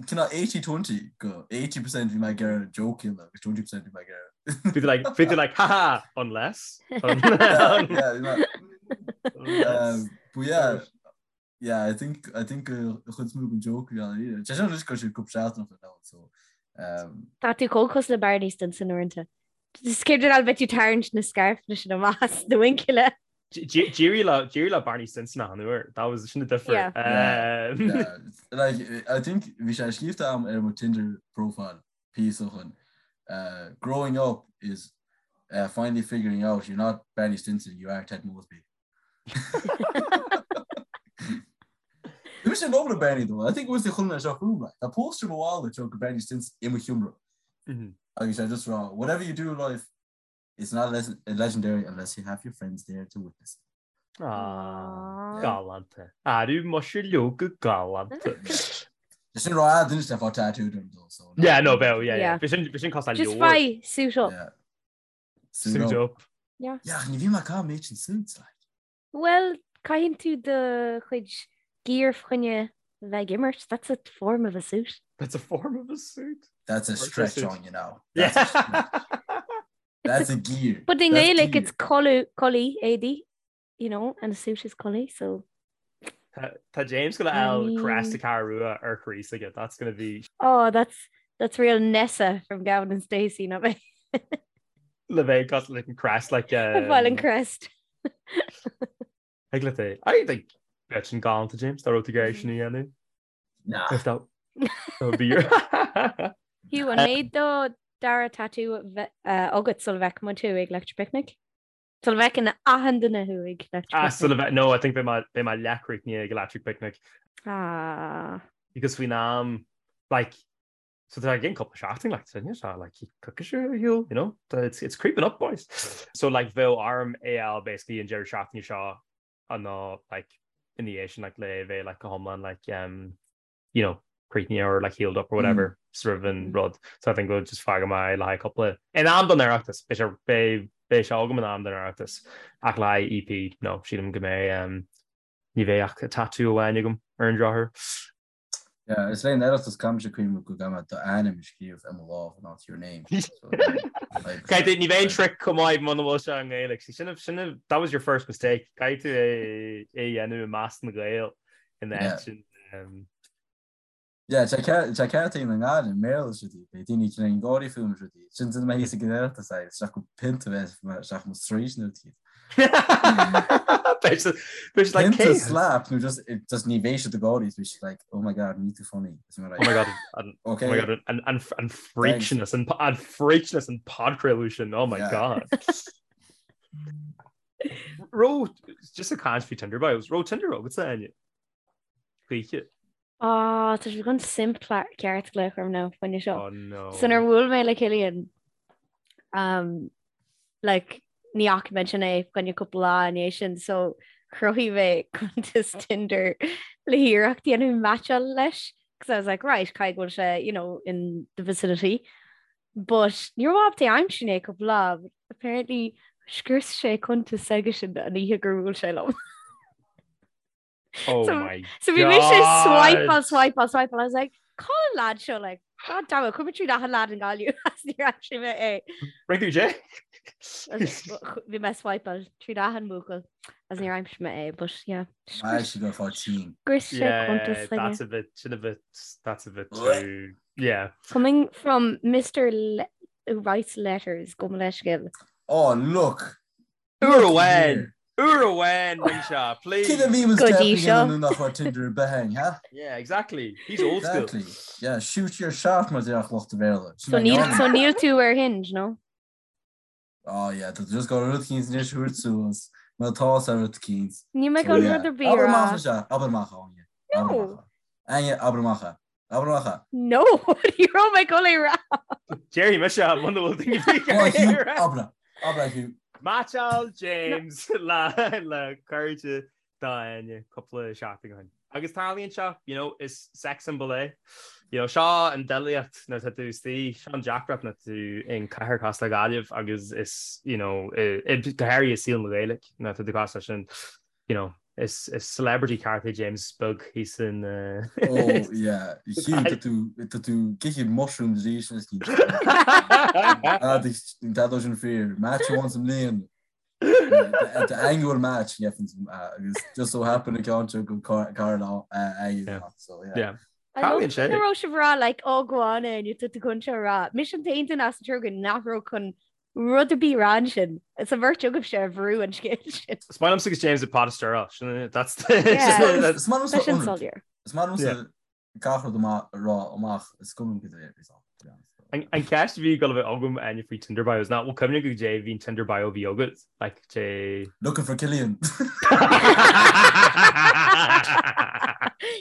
Cineál 80-20 go 80% bhí mé ag iarraidh joke a dhéanamh agus 20% bhí mé ag iarraidh. Bhí tú like, bhí tú like, haha, unless. Yeah, bhí mé. Um, but yeah, yeah, I think, I think an chuid is mó den joke a bhí ann. Sé sin anois go sé cúpla seachtain ó shin now, so, um, Tá tú chomh cosúil le Barney Stinson uaireanta. Is céard an bheith tú tarraingt na scairfeanna sin amach as do mhuinchille. D'éirigh le d'éirigh le Barney Stinson achan uair. That was sin an difear. Yeah. Um, Yeah, like, I think bhí sé scríobhta a'm ar mo Tinder profile píosa ó shin. Uh, growing up is uh, finally figuring out you're not Barney Stinson, you are Ted Mosby. Bhí mise in love le Barney though. I think it was the chun seo fúm like. Tá poster mo bhaile teo go Barney Stinson i mo sheomra. Agus sé just rá, whatever you do in life, It's not legendary unless you have your friends there to witness it. Aww, galánta. Arú muise leoga galánta. Sin rá duine le fá tattoo dom dó so. Yeah, no, bheadh, yeah, yeah. Bhí sin bhí sin cosúil Just faigh suit up. Yeah. Suit up. Yeah. Yeah, ní bhí mé cá méid sin suits like. Well, caitheann tú do chuid gear fá choinne bheith ag imirt. That's a form of a suit. That's a form of a suit. That's a stretch on you know. Yeah. That's a stretch. That's a gear. But in That's Gaelic, gear. it's culaith, culaith, éadaí, you know, and a suit is culaith, so. Tá James gonna I fháil crest mean- na Ceathrún Rua ar chroí s'aige. That's gonna be Oh, that's that's real Nessa from Gavin and Stacey, not me. le bheith got like an crest like Um, an crest. Ag le é. I think bheadh sin galánta James dá raibh tú ag iarraidh sin a dhéanamh. Nah. If that that would be your Hugh, an mbeidh do dara tattoo agat sula bhfeicfidh muid thú ag Electric Picnic? Sula bhfeiceann achan duine thú ag Electric Ah, Picnic? sula bheith no, I think beidh mé beidh mé leathchríochnaithe ag Electric Picnic. Ah. Because faoin am like So tá againn cúpla seachtain like so níl sé like coicís ar shiúl, you know? It's, it's creeping up boys. So like bheadh orm é a fháil basically an deireadh seachtaine seo nó like ina dhiaidh sin like le bheith like go hiomlán like um, you know, críochnaithe or like healed up or whatever mm. roimh an rud. So I think we'll just fágfaidh mé le haghaidh cúpla in am don Oireachtas beidh sé beidh beidh sé agam in am don Oireachtas ach le haghaidh EP no sílim go mbeidh um, ní bheidh ach tattoo amháin agam ar an drochuair. Yeah, is le Oireachtas caithfidh mise cuimhneamh go gcaithfidh mé d'ainm a scríobh ar mo lámh not your name. So, like, Caithfidh ní bheidh an trick chomh maith muna bhfuil sé i nGaeilge. See, sin, sin, that was your first mistake. Caithfidh tú é é dhéanamh i measc na Gael. In áit sin. Yeah, tá ceart ag na nGael i mBéarla is rudaí, beidh daoine ag cineál gáirí fúm is rudaí. Sin duine mé thíos ag an Oireachtas é, isteach go pionta bheith isteach mo straois nó rudaí. Beidh siad like, Pionta slap nó just just ní bheidh siad ag gáirí, beidh siad like, oh my god, ní too funny. Is mé like, Oh my god, an, okay. oh my god, an, an, an freakness, an, an freakness an podchraoladh sin, oh my Yeah. god. Raibh, just ag caint faoi Tinder bios, raibh Tinder agatsa, Áine? Choíche. Ah, tá sé chun simp ceart glaoch orm now fá choinne seo. Oh no. So nuair a bhuail mé le Cillian, um, like, ní fhaca mé ansin é fá choinne cúpla lá i ndiaidh sin, so chruthaigh mé cuntas Tinder le hiarracht dhéanamh meaitseáil leis, because I was like, right, caithfidh go bhfuil sé, you know, in the vicinity. But ní raibh mé ábalta é a aimsiú i ndiaidh cúpla lá, but apparently scrios sé cuntas s'aigesean an oíche gur bhuail sé liom. Oh So- my So bhí mise God. swipeáil, swipeáil, swipeáil. I was like, cá bhfuil an lad seo like, God damn it, chuaigh mé tríd achan lad i nGaillimh as níor aimsigh mé é. Ring tú Jay? Bhí mé swipeáil tríd achan mbuachaill as níor aimsigh mé é, but yeah. Why she go for team? Scrios sé Yeah, cuntas s'aige. that's a bit, sin a bit, that's a bit too, yeah. Coming from Mr. Le who writes letters, gabh mo leithscéal. Oh, look! Uair amháin! Uair amháin, rinne sé, please! Cé a bhí Go dtí seo. nach raibh Tinder ar bith againn, ha? Yeah, exactly. He's old school. Exactly. Yeah, shoot your shot mar déarfadh lucht an Bhéarla. So níl so níl tú ar Hinge, no? Oh yeah, tá just go rud eicínt anois a thabhairt suas, má tá sa rud eicínt. Níl mé chun rud ar bith a Abair rá. amach é, abair amach Áine. No. Abair amach é. Áine, abair amach é. Abair amach é. No, ní raibh mé chun é rá. Déarfaidh mise muna bhfuil daoine Go on, Hugh, abair é. Abair é, Hugh. Meaitseáil James le le cairde d'Áine cúpla seachtain ó shin. Agus tarlaíonn seo, you know, is sex symbol é. You know, seo an doilíocht nuair atá tú istigh, seo an deacracht nuair atá tú in cathair cosúil le Gaillimh agus is, you know, i, go háirithe i saol na Gaeilge nuair atá tú cosúil leis sin, you know, is is celebrity ceart é James beag thíos in Oh yeah, Hugh, tá tú tá tú ag ithe mushrooms arís anois ní Tá sin fíor, match amháin sa mbliain. The annual match agus just so happen a ceann seo go cara le so yeah. Yeah. I love go raibh sibh ag rá like oh go on Áine tá tú chun seo a rá. Mise an t-aon duine as an triúr againn nach raibh chun rud ar bith a rá ansin. Is an bheirt agaibhse a bhrú an scéal sin. Is maith liomsa agus James ag pot a stir sin that's Yeah. Is maith Tá sin liomsa soiléir. Is maith liomsa gach rud amach a rá amach is cuma liom cad é a bhí ann, to be honest. An ceist a bhí ag dul a bheith agam Áine faoi Tinder bios ná bhfuil cuimhne agat goidé a bhí an Tinder bio a bhí agat like dé Looking for Killian.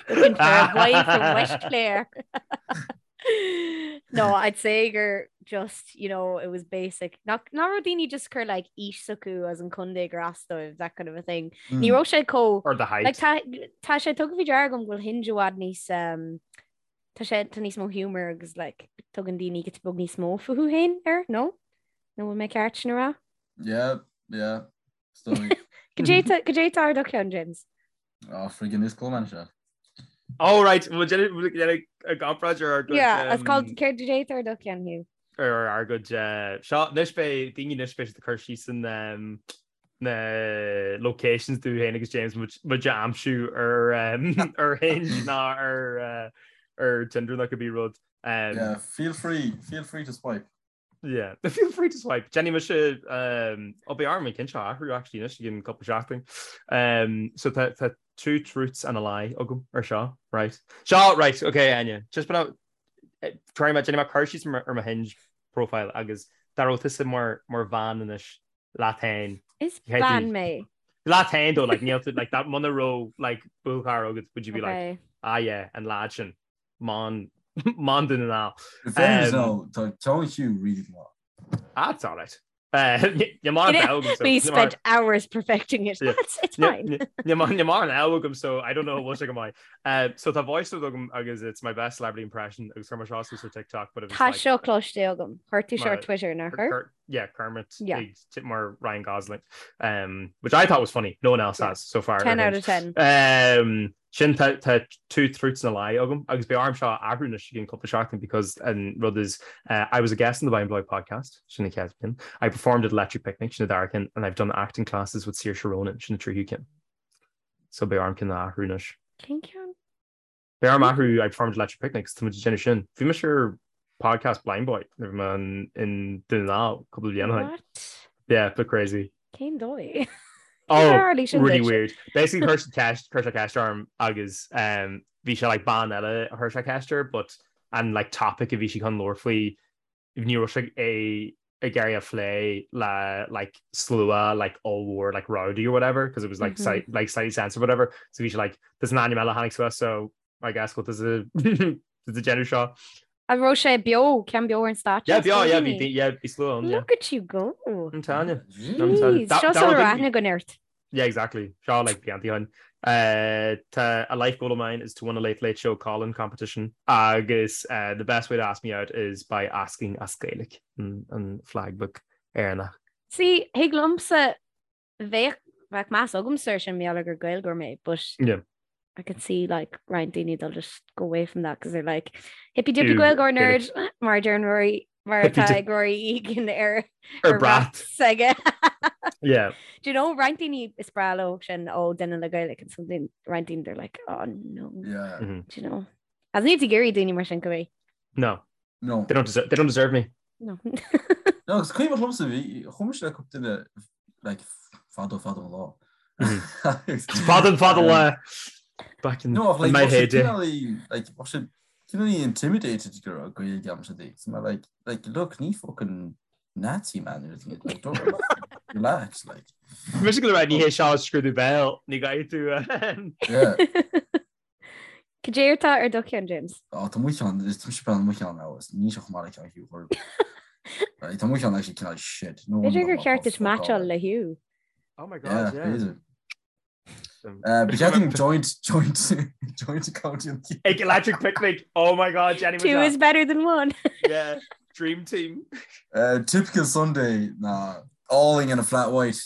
Looking for a boy from West Clare. No, I'd say gur just, you know, it was basic. Nach nach raibh daoine just cur like aois s'acu as an contae gur as dóibh, that kind of a thing. Ní raibh sé chomh Or the height. like tá tá sé tugtha faoi deara agam go bhfuil Hinge i bhfad níos um, tá sé tá níos mó humour agus like tugann daoine giota beag níos mó fúthu féin air, no? Nó bhfuil mé ceart sin a rá? Yeah, yeah. Is dóigh. Goidé tá goidé tá ar do cheann, James? Oh, friggin' is cool man seo. Oh right, bhfuil déanamh a gcomparáid ar ár gcuid Yeah, it's called céard goidé tá ar do cheann Hugh. ar ár gcuid seo anois beidh daoine anois beidh siad ag cur síos an na locations dúinn féin agus James muid a aimsiú ar ar Hinge ná ar ar Tinder nó cibé rud. Yeah, feel free, feel free to swipe. Yeah, feel free to swipe. Déanfaidh mise um, ó beidh orm an ceann seo a athrú actually anois i gcionn cúpla seachtain. Um, so tá tá two truths and a lie agam ar seo, right? Seo, right, okay, Áine. Just been try mé déanfaidh mé cur síos ar mo Hinge profile agus dá raibh tusa mar mar bhean anois leat féin. Is bean mé. Leat féin though, like níl tú like that muna raibh like buachaill agat would you be like Okay. ah yeah, an lad sin. Man man den ná. In fairness though, tá ceann Hugh really maith. Ah, it's all right. Ní mar agam We spent hours perfecting it. That's, it's fine. Ní mar agam so I don't know what go maith. So tá voice note agam agus it's my best celebrity impression agus chuir mé seo suas ar TikTok but it was Tá like seo cloiste agam. Chuir tú seo ar Mar- Twitter nach chuir? Yeah, Kermit Yeah. ag mar Ryan Gosling which I thought was funny. No one else Yeah. has so far. 10 ar out of Hinge. 10. Sin tá two truths and a lie agam agus beidh orm seo a athrú anois i gcionn cúpla seachtain because an rud is I was a guest on the By and Bloy podcast, sin an chéad ceann. I performed at Electric Picnic, sin an dara ceann, and I've done acting classes with Saoirse Ronan, sin an tríú ceann. So beidh orm ceann a athrú anois. Cén ceann? Beidh orm athrú I performed Electric Picnic 's tá muid ag déanamh sin. Bhí mise ar podcast Blindboy nuair a bhí mé in Dún na nGall cúpla bliain ó shin. What? Yeah, bit crazy. Cén dóigh? Oh, tharla sin really duit? weird. Basically chuir siad ceist, chuir sé ceist orm agus um, bhí sé like bean eile a chuir sé ceist air, but an like topic a bhí sí chun labhairt faoi ní raibh sé é ag iarraidh a phlé le like slua like ollmhór like rowdy or whatever because it was like mm -hmm. like slightly sensitive or whatever so bhí sé like there's an ainm eile tháinig suas so I guess what does a does a déanamh seo An raibh sé beo ceann beo ar an stáitse? Yeah beo yeah bhí yeah bhí slua ann yeah. Look at you go. An Tanya. Seo sula raibh aithne againn ort. Yeah, exactly. Seo like blianta ó shin. Uh, tá a life goal of mine is to win a Late Late Show call-in competition agus uh, the best way to ask me out is by asking as Gaeilge an, an flag book Éireannach. See, thig liomsa bheadh bheadh meas agamsa air sin mar gheall gur Gaeilgeoir mé, but Yeah. I can see like roinnt daoine they'll just go away from that because they're like hippy dippy Gaeilgeoir nerd mar deir Rory mar atá ag Rory Egan ar ar brat s'aige. Yeah. Do you know roinnt daoine is breá leo sin ó duine le Gaeilge and something roinnt daoine they're like oh no. Yeah. Mm -hmm. Do you know? As ní ag iarraidh daoine mar sin go bhí. No. No. They don't deserve, they don't deserve me. No. No, agus cuimhin liomsa bhí chuaigh mise le cúpla duine like fadó fadó an lá. Fada fada lá back in No, ach, like, my bheadh sé heyday. cineál like bheadh sé cineál intimidated go raibh Gaeilge agamsa di. So mé like like look ní fucking Nazi man or anything like don't relax like. Mise go raibh ní hé seo scrúdú béil ní gcaithfidh tú Yeah. Cad é atá ar do cheann, James? Á, tá mo cheann, is tá mise breathnú mo cheann now, is níl sé chomh maith le ceann Hugh Horgan. Right, tá mo cheann actually cineál shit. No B'fhéidir wonder gur tá cheart duit fuck all meaitseáil le Hugh. Oh my Yeah, god, yeah. b'fhéidir. Uh, Ba cheart dúinn joint, joint, joint account in Ag Electric Picnic. Oh my god, Jenny Two is better than one. Yeah, dream team. Uh, typical Sunday ná álainn and a flat white.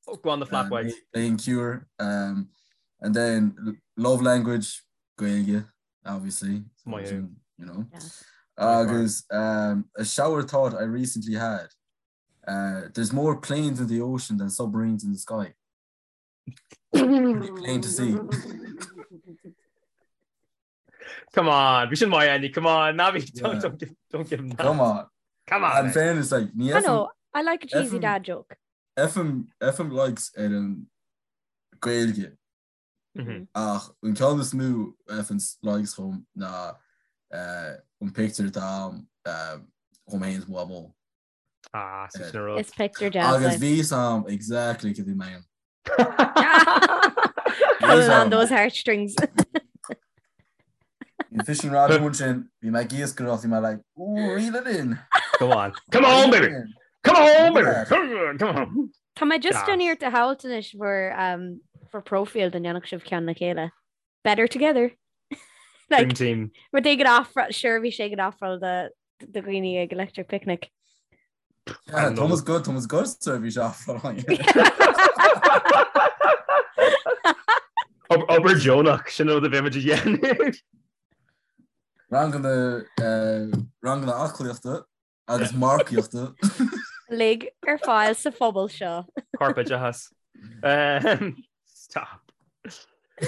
Oh, go on the flat white. Playing Cure. Um, and then love language, Gaeilge, obviously. My So, you know. Yeah. Agus um, a shower thought I recently had. Uh, there's more planes in the ocean than submarines in the sky. Plain to see. Come on, bhí sin maith Andy, come on, ná bí, don't, Yeah. don't, give, don't give him that. Come on. Come on. And mate. fairness, like, ní I know, I like a cheesy FM dad joke. Fhaigheann fhaigheann likes ar an Gaeilge Mhm. ach an ceann is mó a fhaigheann likes chugam ná eh, an picture atá a'm eh, dhom féin is mo mhamó. Ah, sin sin an rud. Is picture deas Agus é. bhí a fhios a'm exactly cad a bhí mé Pulling on those heartstrings. Bhí fishing rod amuigh ansin, bhí mé ag iascaireacht, bhí mé like, ooh, reel it in. Come on. Come on, baby. Come on, baby. Come on. Tá mé just Gas. ag déanamh iarracht a shamhailt anois bhur um, bhur profile dá ndéanfadh sibh ceann le chéile. Better together. Dream Like, team. rud éigin ofráil, seirbhís éigin ofráil do do dhaoine ag Electric Picnic. Yeah, Thomas good, Thomas good seirbhís ofráil. Obair deonach sin rud a bheimid a dhéanamh. Ranganna ranganna aclaíochta agus marcaíochta. Uilig ar fáil sa phobal seo. Corpoideachas. Stop.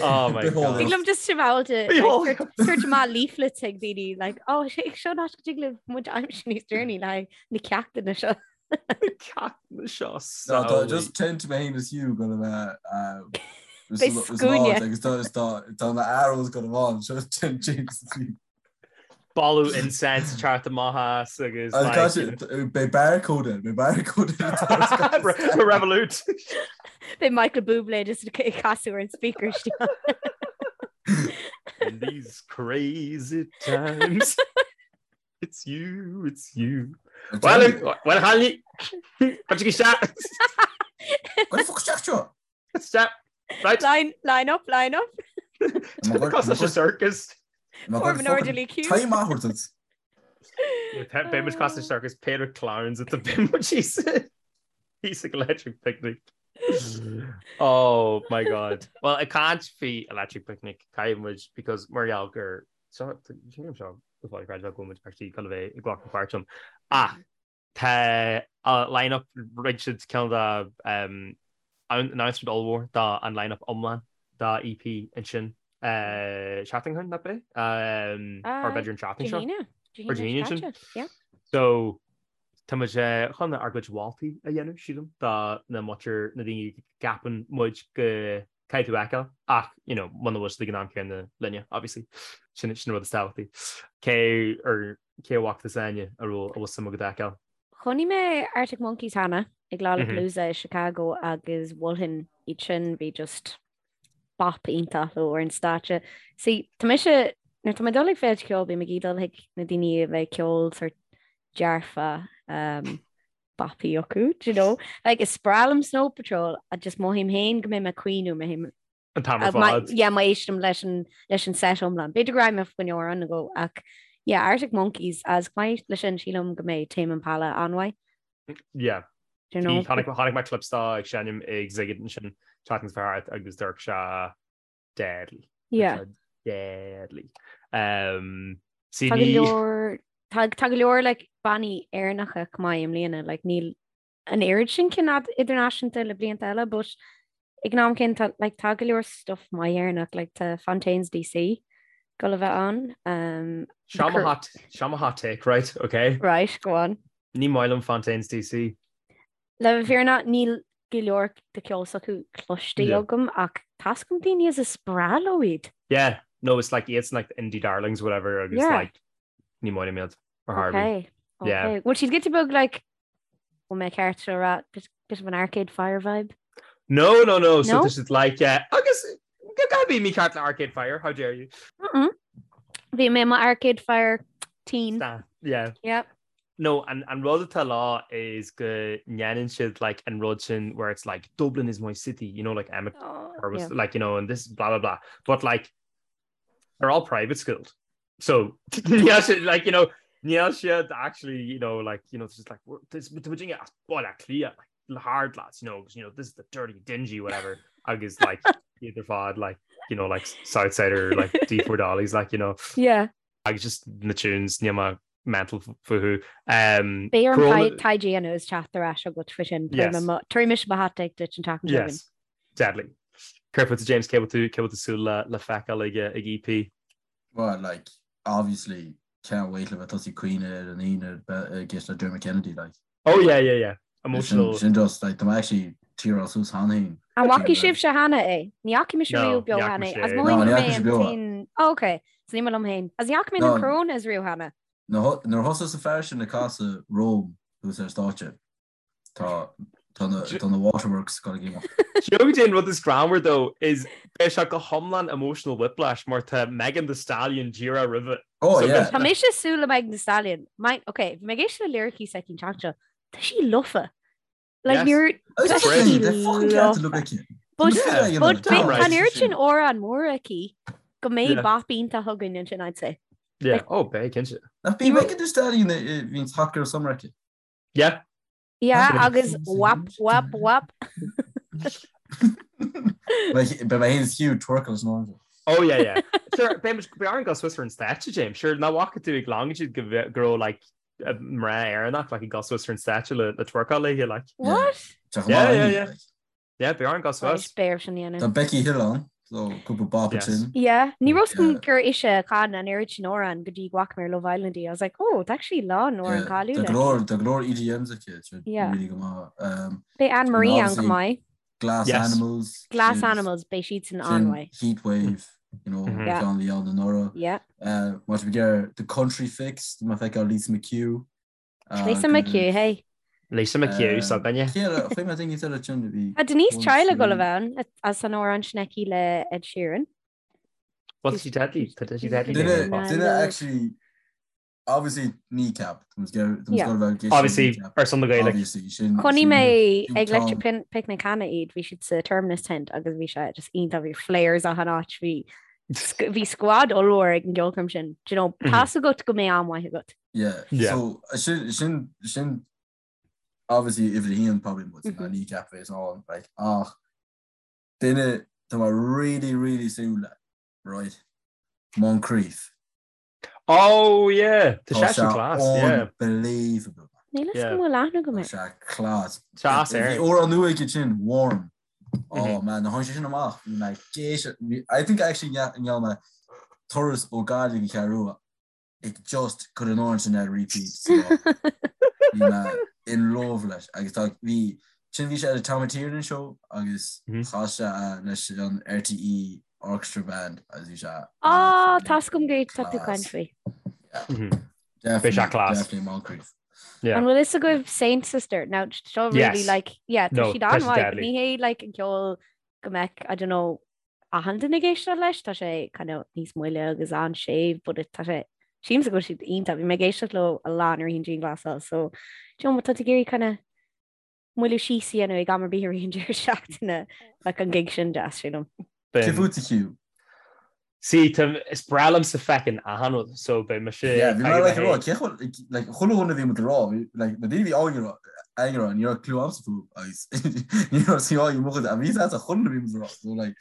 Oh my God. Thig liom just shamhailt tabhairt amach leaflets ag daoine like oh sé seo an áit go dtig libh muid a aimsiú níos deireanaí le na ceachtanna seo. Na ceachtanna seo No, tá just tent mé féin is Hugh go bheith Beidh scuaine. agus tá na arrows go bháin seo tent James is Hugh. Boladh incense teacht amach as agus Beidh barcode beidh barcode Revolut. Beidh Michael Bublé just ag casadh ar an speaker In these crazy times It's you, it's you. Well, well, Hanley, Stop. Stop. Right. Line, line up, line up. Cos leis an circus. Form an orderly queue. Time athbhairt. Beidh muid cosúil circus pair of clowns at the bim He's like electric picnic. Oh my god. Well, ag caint faoi electric picnic caithfidh muid because mar gheall gur seo seo go fáil creidmheach go bhfuil muid actually chun a bheith ag glacadh páirt ann. Ach Tá line up rinne siad cineál de announcement ollmhór do an line up iomlán. dá EP ansin seachtain ó shin, nach b'é? Or b'fhéidir an tseachtain seo. Or Dé hAoine ansin. So tá muid chun ár gcuid mholtaí a dhéanamh, sílim, do na muintir, na daoine a gceapann muid go caithfidh tú a fheiceáil ach, you know, muna bhfuil siad ag an am céanna linne, obviously. Sin sin an rud is tábhachtaí. Cé ar cé a bhfaca tusa Áine a raibh a bhfuil suim agat a fheiceáil? Chonaic mé Arctic Monkeys cheana ag Lollapalooza i Chicago agus mholfainn iad sin, bhí just bop iontach leo ar an stáitse. See, tá mise, nuair tá mé ag dul ag féilte ceoil, bím ag dul chuig na daoine a bheidh ceol sort dearfa, um, boppy acu, do you know? Like, is breá liom Snow Patrol, ach just mothaím féin go mbeidh mé ag caoineadh, mothaím An t-am ar fad. Yeah, má éistim leis an leis an set iomlán. B'fhéidir go raghfaidh mé faoi choinne amhrán nó dhó ach yeah, Arctic Monkeys agus chomh maith leis sin sílim go mbeidh Tame Impala an-mhaith. Yeah. Do you know? Chonaic chonaic mé clips dó ag seinm ag Sziget ansin tseachtain seo thart agus d'amharc sé deadly. Yeah. Deadly. Um, see, Tá go leor tá tá go leor like bannaí Éireannacha chomh maith i mbliana, like níl an oiread sin cinn idirnáisiúnta le blianta eile, but ag an am céanna tá like tá go leor stuff maith Éireannach, like tá Fontaines DC ag dul a bheith ann. Um, Seo mo hot, seo mo hot take, right? Okay. Right, go on. Ní maith liom Fontaines DC. Le bheith fírinneach níl go leor de ceol s'acu cloiste Yeah. agam ach tá 's agam daoine is is breá leo iad. Yeah, no, it's like iadsan like the indie darlings whatever agus Yeah. like ní maith liom iad ar chor ar bith. Okay. Yeah. Okay. Bhfuil siad giota beag like Bhfuil mé ceart seo a rá bit bit of an Arcade Fire vibe? No, no, no, so No? this is like uh, agus ná bí mícheart le Arcade Fire, how dare you? Mm-mm. Bhí mé i mo Arcade Fire teen. Stan, yeah. Yep. No, an, an rud atá leo is go ndéanann siad like an rud sin where it's like Dublin is my city, you know, like Emmet Oh, or was yeah. like, you know, and this blah blah blah. But like they're all private schooled. So níl siad like you know níl siad actually you know like you know it's just like we're- this tá muid as Baile Átha Cliath like the hard lads you know 'cause, you know this is the dirty dingy whatever agus like iad ar fad like you know like Southsider like D4 Dollies like you know Yeah. agus just na tunes níl mé mental fúthu um Beidh orm Corona- taighde a dhéanamh is teacht ar ais agat faoi sin. Yes. Tabharfaidh mise mo hot take duit an tseachtain seo chugainn. Yes deadly Céard fútsa James cé bhfuil tú cé bhfuil tú súil le le feiceáil ag ag EP Well, like, obviously, can't wait le bheith tosaí ag caoineadh ar an Aoine ag éisteacht le Dermot Kennedy, like. Oh yeah, yeah, yeah. Emotional. Sin just, like, tá mé actually tearáil suas cheana féin. An bhfaca sibhse cheana é? Ní fhaca mise riamh beo cheana é. As mothaím go mbeidh an t-aon... Oh, ok. So ní mé liom féin. As ní fhaca mé na Coronas riamh cheana. Nuair a thosaigh an fear sin ag casadh Rome thuas ar stáitse, Tá tá na tá na waterworks ag imeacht. Do you know goidé an rud is greannmhar though is beidh sé go hiomlán emotional whiplash mar tá Megan Thee Stallion díreach roimhe. Oh yeah. Tá mise ag súil le Megan Thee Stallion. My, ok, bhí mé ag éisteacht le lyricí s'aici an tseachtain seo. Tá sí lofa. Like níor tá sí lofa. But but tá an oiread sin amhrán mór aici go mbeidh bop iontach againn ansin I'd say. Yeah, oh beidh cinnte. Nach b'í Megan Thee Stallion bhí Hot Girl Summer aici? Yeah. Yeah, agus wap, wap, wap. Beidh mé féin is Hugh twerkáil san áireamh. Oh yeah, yeah. Sure, beidh muid beidh orainn dul suas ar an stáitse, James. Sure, nach bhfaca tú ag Longitude go bhfe- go raibh like mná Éireannach like ag dul suas ar an stáitse le le twerkáil léi like. What? Tá chomh Yeah, maith yeah, léi, yeah. like. Yeah, beidh orainn dul suas. Beidh orm sin a dhéanamh. Tá Becky Hill ann, so cúpla bop Yes. ansin. Yeah, ní raibh 's agam Yeah. gur ise a chan an oiread sin amhrán go dtí go bhfaca mé ar Love Island í. I was like, oh, it's actually lán amhrán Yeah, Tá cáiliúil go aici. leor tá go leor EDMs aici, tá Yeah. really go maith. Um, Beidh Anne Marie ann obviously chomh maith. Glass Yes. Animals. Glass is Animals, beidh siad san sin an-mhaith. Heatwave, you know, Mhm. Yeah. ceann a bhí ann anuraidh. Yeah. Uh, má tá mé ag The Country Fix, tá mé ag feiceáil Lisa McHugh. Lisa McHugh, hey. Lisa McHugh, s'againne. Chuir mé daoine eile sin a bhí. Tá Denise Chaila ag dul a bheith ann as an amhrán sin aici le Ed Sheeran. Well, tá sí deadly, tá sí deadly. Duine, duine actually, obviously Kneecap. Obviously, ar son na Gaeilge. Obviously, sin. Chonaic mé ag Electric Picnic cheana iad, bhí siad sa Terminus Tent agus bhí sé just iontach, bhí flares achan áit, bhí bhí squad ollmhór ag an gceolchoirm sin. Do you know, tá's agat go mbeidh am maith agat. Yeah. Yeah. So sin sin sin obviously uimhir a haon probably muid mm -hmm. Kneecap bheas ann like ach duine tá mé really really súil le right Moncrieff. Oh yeah, tá sé sin class, yeah. Unbelievable. Níl a fhios go bhfuil aithne agam air. Tá sé class. Tá air. Bhí amhrán nua aige sin, Warm. Oh man, nuair a tháinig sé sin amach, bhí mé ag éisteacht, I think actually ndearna mé turas ó Gaillimh go Ceathrú Rua ag just cur an amhrán sin ar repeat sa lá. Bhí mé in love leis agus tá bhí sin bhí sé ar an Tom Tiernan show agus chas sé leis an RTÉ Orchestra Band agus bhí sé Á, tá 's agam go tá tú caint faoi. Bhí sé class. Definitely Moncrieff. Yeah. An bhfuil fhios agaibh Saint Sister? Now, seo really Yes. like, yeah, tá No, siad tá siad an-mhaith, deadly. ní hé like an ceol go mbeadh, I don't know, achan duine ag éisteacht leis, tá sé kind of níos moille agus an-séimh, but it, tá sé, sílimse go bhfuil siad iontach, bhí mé ag éisteacht leo a lán i rith an dianghlasáil, so, do you know, má tá tú ag iarraidh kind of moilliú síos a dhéanamh ag am ar bith i rith an deireadh seachtaine, like an gig sin deas, sílim. Cé fút a Hugh? See, tá, is breá liomsa feckin' achan rud, so beidh mise Yeah, bhí mé ag like ag rá, a cé chomh, like, chuile dhuine a bhí muid ag rá, bhí, like, na daoine a bhí againn ag rá, ag rá, ní raibh clue a'msa fúthu, agus ní raibh sí á mo chuid, a bhí a chuile dhuine a bhí muid ag rá, so like,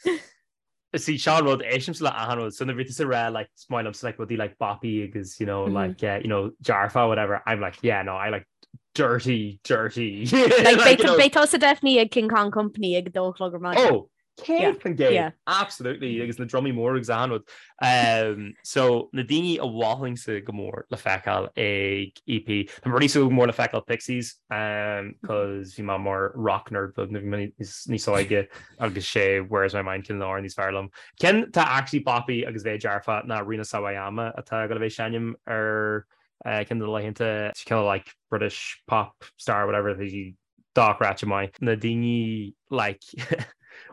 See, seo an rud, éistimse le achan rud, so nuair a bhí tusa ag rá, like, is maith liomsa, like, rudaí like boppy agus, you know, like, uh, you know, dearfa, whatever, I'm like, yeah, no, I like dirty, dirty. Like, Like, you know, beidh tusa definitely ag King Kong Company ag dó a chlog ar maidin. Oh, 100%, absolutely, agus na drumaí mór agus achan rud. Um, so, na daoine a mholfainnse go mór le feiceáil ag EP, tá mé really súil go mór le feiceáil Pixies, um, cos bhí mé mar rock nerd beag nuair a bhí mé níos, níos óige agus sé Where's My Mind ceann de na hamhráin is fearr liom. Ceann tá actually boppy agus bheith dearfa ná Rina Sawayama atá ag dul a bheith ag seinm ar uh, ceann de na laethanta, kind of like British pop star whatever, tá sí dochreidte maith. Na daoine like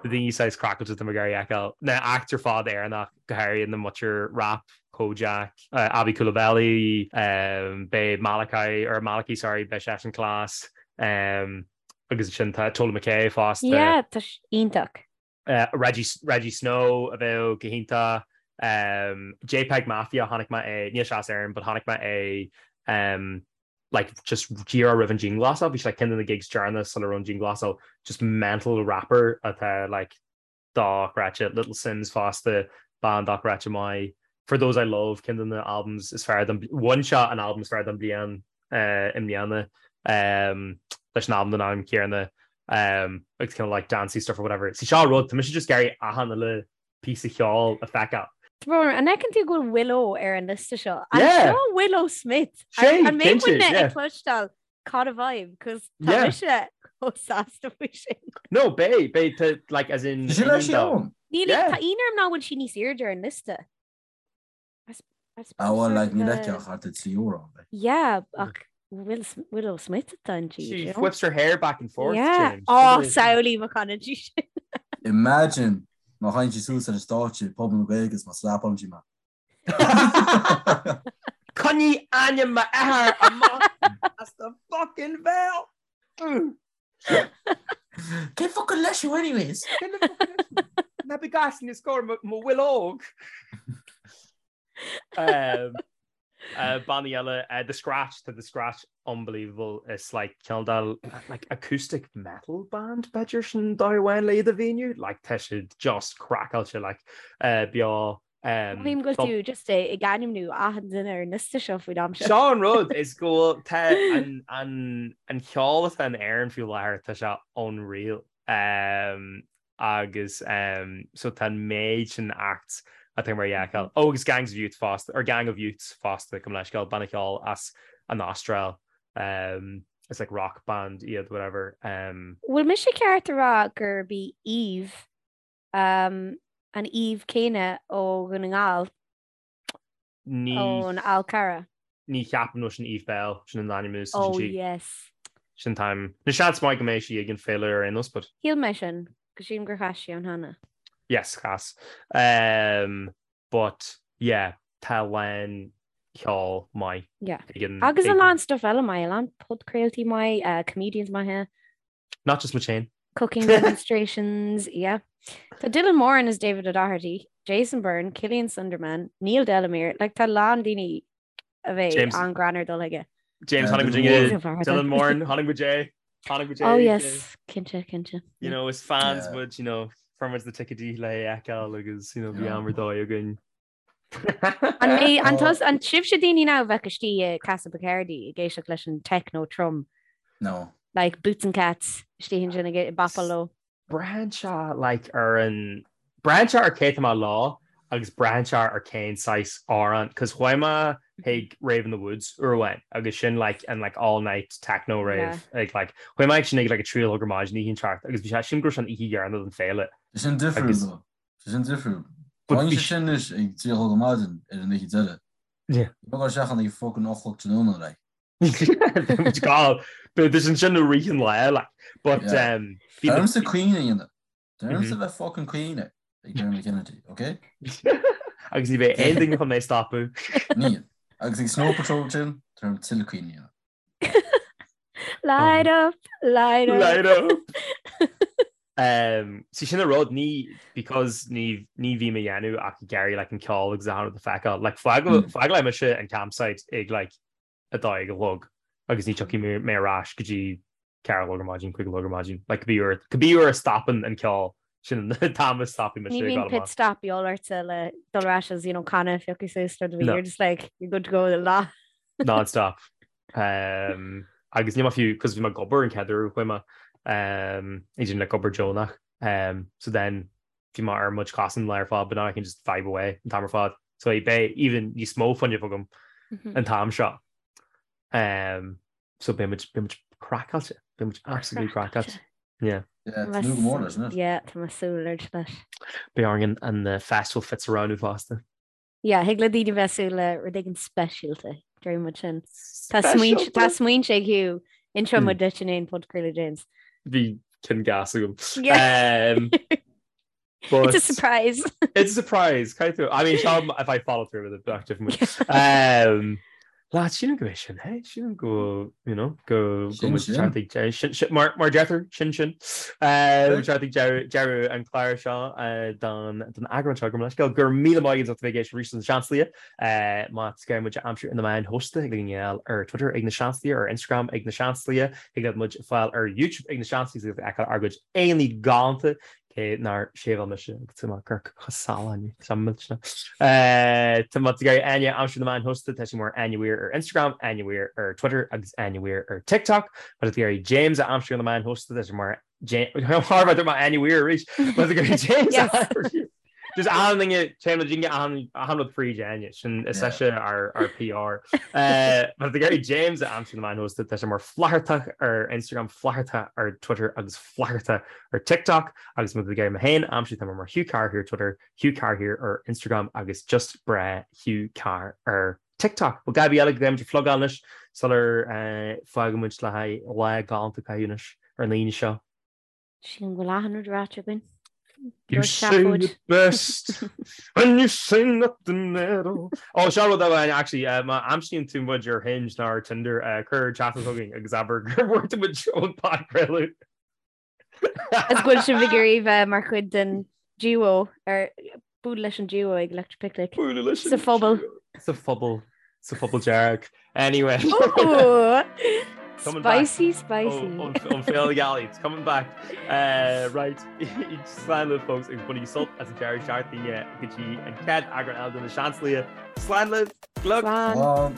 na daoine saghas craiceáilte atá mé ag iarraidh a fheiceáil. Na acts ar fad Éireannach, go háirithe na muintir rap, Kojaque, Aby Coulibaly, um, beidh Malachi, or Malachy sorry, beidh seisean class, um, agus ansin tá Tola McKay fosta. Yeah, tá sé iontach. Uh, Rejjie, Rejjie Snow a bheadh go hiontach. Um, JPEG Mafia chonaic mé é, níl sé as Éirinn, but chonaic mé é um, like just díreach roimh an dianghlasáil, bhí sé like ceann de na gigs deireanach sula raibh an dianghlasáil, just mental rapper atá like dochreidte, Little Simz fosta, band dochreidte maith, For Those I Love ceann de na albums is fearr don, bhain sé an album is fearr don bhliain eh, i mbliana um, leis an album den ainm céanna um, agus kind of like dancey stuff or whatever. See seo rud, tá mise just ag iarraidh achan uile píosa cheoil a feiceáil. Tá an fheiceann tú go bhfuil Willow ar an liosta seo? An Yeah. seo Willow Smith? Sé, An mbeidh cinnte, muidne yeah. ag cloisteáil Caught a Vibe? Cos tá Yeah. mise chomh sásta faoi sin. No, beidh, beidh, tá, like, as in... Sin leis sí ann. Níl, Yeah. tá ionadh orm nach bhfuil sí níos airde ar an liosta. Ah well, like, níl aici ach thart ar 3 amhrán, like. Yeah, ach Will, Willow Smith atá inti. She you know? whips her hair back and forth, Yeah. James. Oh, samhlaigh má chanann sí sin. Imagine má thagann sí suas ar an stáitse ag Puball na Gaeilge is má slapálann sí mé. Coinnigh ainm m'athar amach as do fucking bhéal! Cén focal leis thú anyways? Ná bí gas ní scór mo bhfuil óg. Bannaí eile, The Scratch, tá The Scratch unbelievable. Is like cineál de like acoustic metal band b'fhéidir sin dóigh amháin le iad a mhíniú. Like tá siad just craiceáilte like beo Mothaím go bhfuil tú just ag ainmniú achan duine ar an liosta seo faoin am seo. Seo an rud is go bhfuil tá an an an ceol atá in Éirinn faoi láthair tá sé unreal. Um, agus um, so tá an méid sin acts atá mar fheiceáil. Oh, agus Gangs of Youth fosta, or Gang of Youths fosta gabh mo leithscéal, banna ceoil as an Astráil. Um, it's like rock band iad, whatever. Um, Bhfuil mise ceart a rá gurb í Eve um, an Eve céanna ó Dhún na nGall Ní ón Fhál Carrach. ní cheapaim nó sin Eve Belle, sin an ainm a úsáideann Oh sí. yes. Sin time. Nó seans maith go mbeidh sí ag an féile ar aon nós, but. Shíl mé sin, go sílim gur chas sí ann cheana. Yes, chas. Um, but yeah, tá a lán ceol maith. Yeah. Ag an, Agus a ag lán stuff eile maith, a lán podchraoltaí maith, uh, comedians maithe. Not just muid féin. Cooking demonstrations, yeah. Tá Dylan Moran is David O'Doherty, Jason Byrne, Killian Sundermann, Neil Delamere, like tá a lán daoine a bheidh James- an-ghreannmhar dul chuige. James Yeah, tháinig Dylan muid Moran. Dylan Moran, tháinig muid é. Tháinig muid é. Oh yes, cinnte, cinnte. You know, is fans Yeah. muid, you know, fuair muid na ticéidí le é a fheiceáil agus, you know, bhí Yeah. am ar dóigh againn. An mé an Oh. tus an sibhse daoine now a bheadh istigh i Casa Bacardi ag éisteacht leis an techno trom, No. like Boots and Cats istigh ansin ag bopáil leo. Braitheann sé like ar an, braitheann sé ar cé tá mé leo agus braitheann sé ar cén saghas amhrán cos chuaigh mé chuig Rave in the Woods uair amháin agus sin like an like all night techno rave ag like chuaigh mé ag sin ag like a 3 a chlog ar maidin oíche inteacht agus bhí sé sílim go raibh sé an oíche dheireanach den féile. Tá sin difriúil though. Tá sin difriúil. Bíonn sé sin anois ag 3 a chlog ar maidin ar an oíche deireadh. Yeah. Ní bheadh sé ach ag fucking 8 a chlog tráthnóna like. Bit sin sin rith an lá like. But Yeah. um, bhí Tá na- ormsa caoineadh a dhéanamh. Tá ormsa bheith fucking caoineadh ag Dermot Kennedy, ok? Agus ní bheidh aon duine chun mé a stopadh. Níl. Agus ag Snow Patrol sin, tá orm tuilleadh caoineadh a dhéanamh. Light up, light up. Light up. Um, sí sin an rud ní because ní ní bhím a dhéanamh ach ag iarraidh like an ceol agus achan rud a fheiceáil. Like Mm. fágfaidh mise an campsite ag like 12 a chlog agus ní tiocfaidh mé ar ais go dtí 4 a chlog ar maidin, 5 a chlog ar maidin. Like cibé uair cibé uair a stopann an ceol sin an t-am a stopfaidh mise Ní ag bhíonn dul pit amach. stop de dhíobháil ortsa le dul ar ais as you know canna a phiocadh suas rud a bhí No. you're just like you're good to go le lá. Non-stop. Um, agus ní fiú cos bhí mé ag obair an chéad uair a chuaigh mé um, ag déanamh like obair deonach. Um, so then bhí mé ar mo chosa an lá ar fad but now I can just vibe away an t-am ar fad. So beidh even níos mó fuinnimh agam an t-am seo. Um, so beidh muid beidh muid craiceáilte, beidh muid absolutely craiceáilte. Yeah. Yeah, tá nú go mór leis, isn't it? Yeah, tá mé ag súil leis. Beidh orainn an an festival fits a roghnú fosta. Yeah, thig le daoine bheith ag súil le rud éigin speisialta, deir muid sin. Tá smaointe tá smaointe ag Hugh, inseoidh muid duit in aon podchraoladh James. Bhí cinn gas agam. Yeah. Um, but It's a surprise. It's a surprise. Caithfidh tú. I mean, seo if I follow through with it, bheadh different. Um, Lad, sílim go bhfuil sin, hey? Sílim go, you know, go go Sin muid sin. teacht ag deireadh. Sin, sin, mar, mar deirtear, sin sin. Uh, teacht ag deireadh deireadh an clár seo uh, don, don eagrán seo go leisceal. Go raibh míle maith agaibh as ucht a bheith ag éisteacht arís leis Na Seansálaithe. Uh, má tá sibh ag iarraidh muid a aimsiú ar na meáin shóisialta thig libh a fháil ar Twitter ag Na Seansálaithe, ar Instagram ag Na Seansálaithe, thig libh muid a fháil ar YouTube ag Na Seansálaithe agus feiceáil ár gcuid aghaidheanna galánta Cé nár sheiveáil mise agus tá mé ag amharc chomh salach tá millteanach. Tá má tá tú ag iarraidh Áine a aimsiú ar na meáin shóisialta, tá sí mar Áine Weir ar Instagram, Áine Weir ar Twitter agus Áine Weir ar TikTok. Má tá tú ag iarraidh James a aimsiú ar na meáin shóisialta, tá sé mar James mar Áine Weir arís. Má tá tú ag iarraidh James a aimsiú. Just achan duine téann muid achan achan rud fríd Áine sin is ise ár ár PR. Má tá tú ag iarraidh James a aimsiú ar na meáin shóisialta, tá sé mar Flathartach ar Instagram, Flathartach ar Twitter agus Flatharta ar TikTok agus má tá tú ag iarraidh mé féin a aimsiú tá mé mar Hugh Carr here ar Twitter, Hugh Carr here ar Instagram agus just breá Hugh Carr ar TikTok. Bhuel a dhath ar bith eile go gcaithfidh muid a phlugáil anois sular fágann muid le haghaidh lá galánta a chaitheamh anois ar an Aoine seo. Sílim go bhfuil achan rud ráite againn. You say it best when you say nothing at all. Ó seo rud amháin actually má aimsíonn tú muid ar Hinge nó ar Tinder cuir teachtaireacht chugainn agus abair gur bhfuair tú muid ón podchraoladh. Is go bhfuil sibh ag iarraidh bheith mar chuid den duo ar Bualadh leis an duo ag Electric Picnic. Bualadh leis Sa phobal. Sa phobal. Sa phobal dearg. Anyway. Ooh! Coming back. Spicy, spicy. Ón Féile Gealaí. It's coming back. Uh, right. Slán libh folks agus bainigí sult as an deireadh seachtaine go dtí an chéad eagrán eile de na Seansálaithe. Slán libh. Glug. Slán. Slán.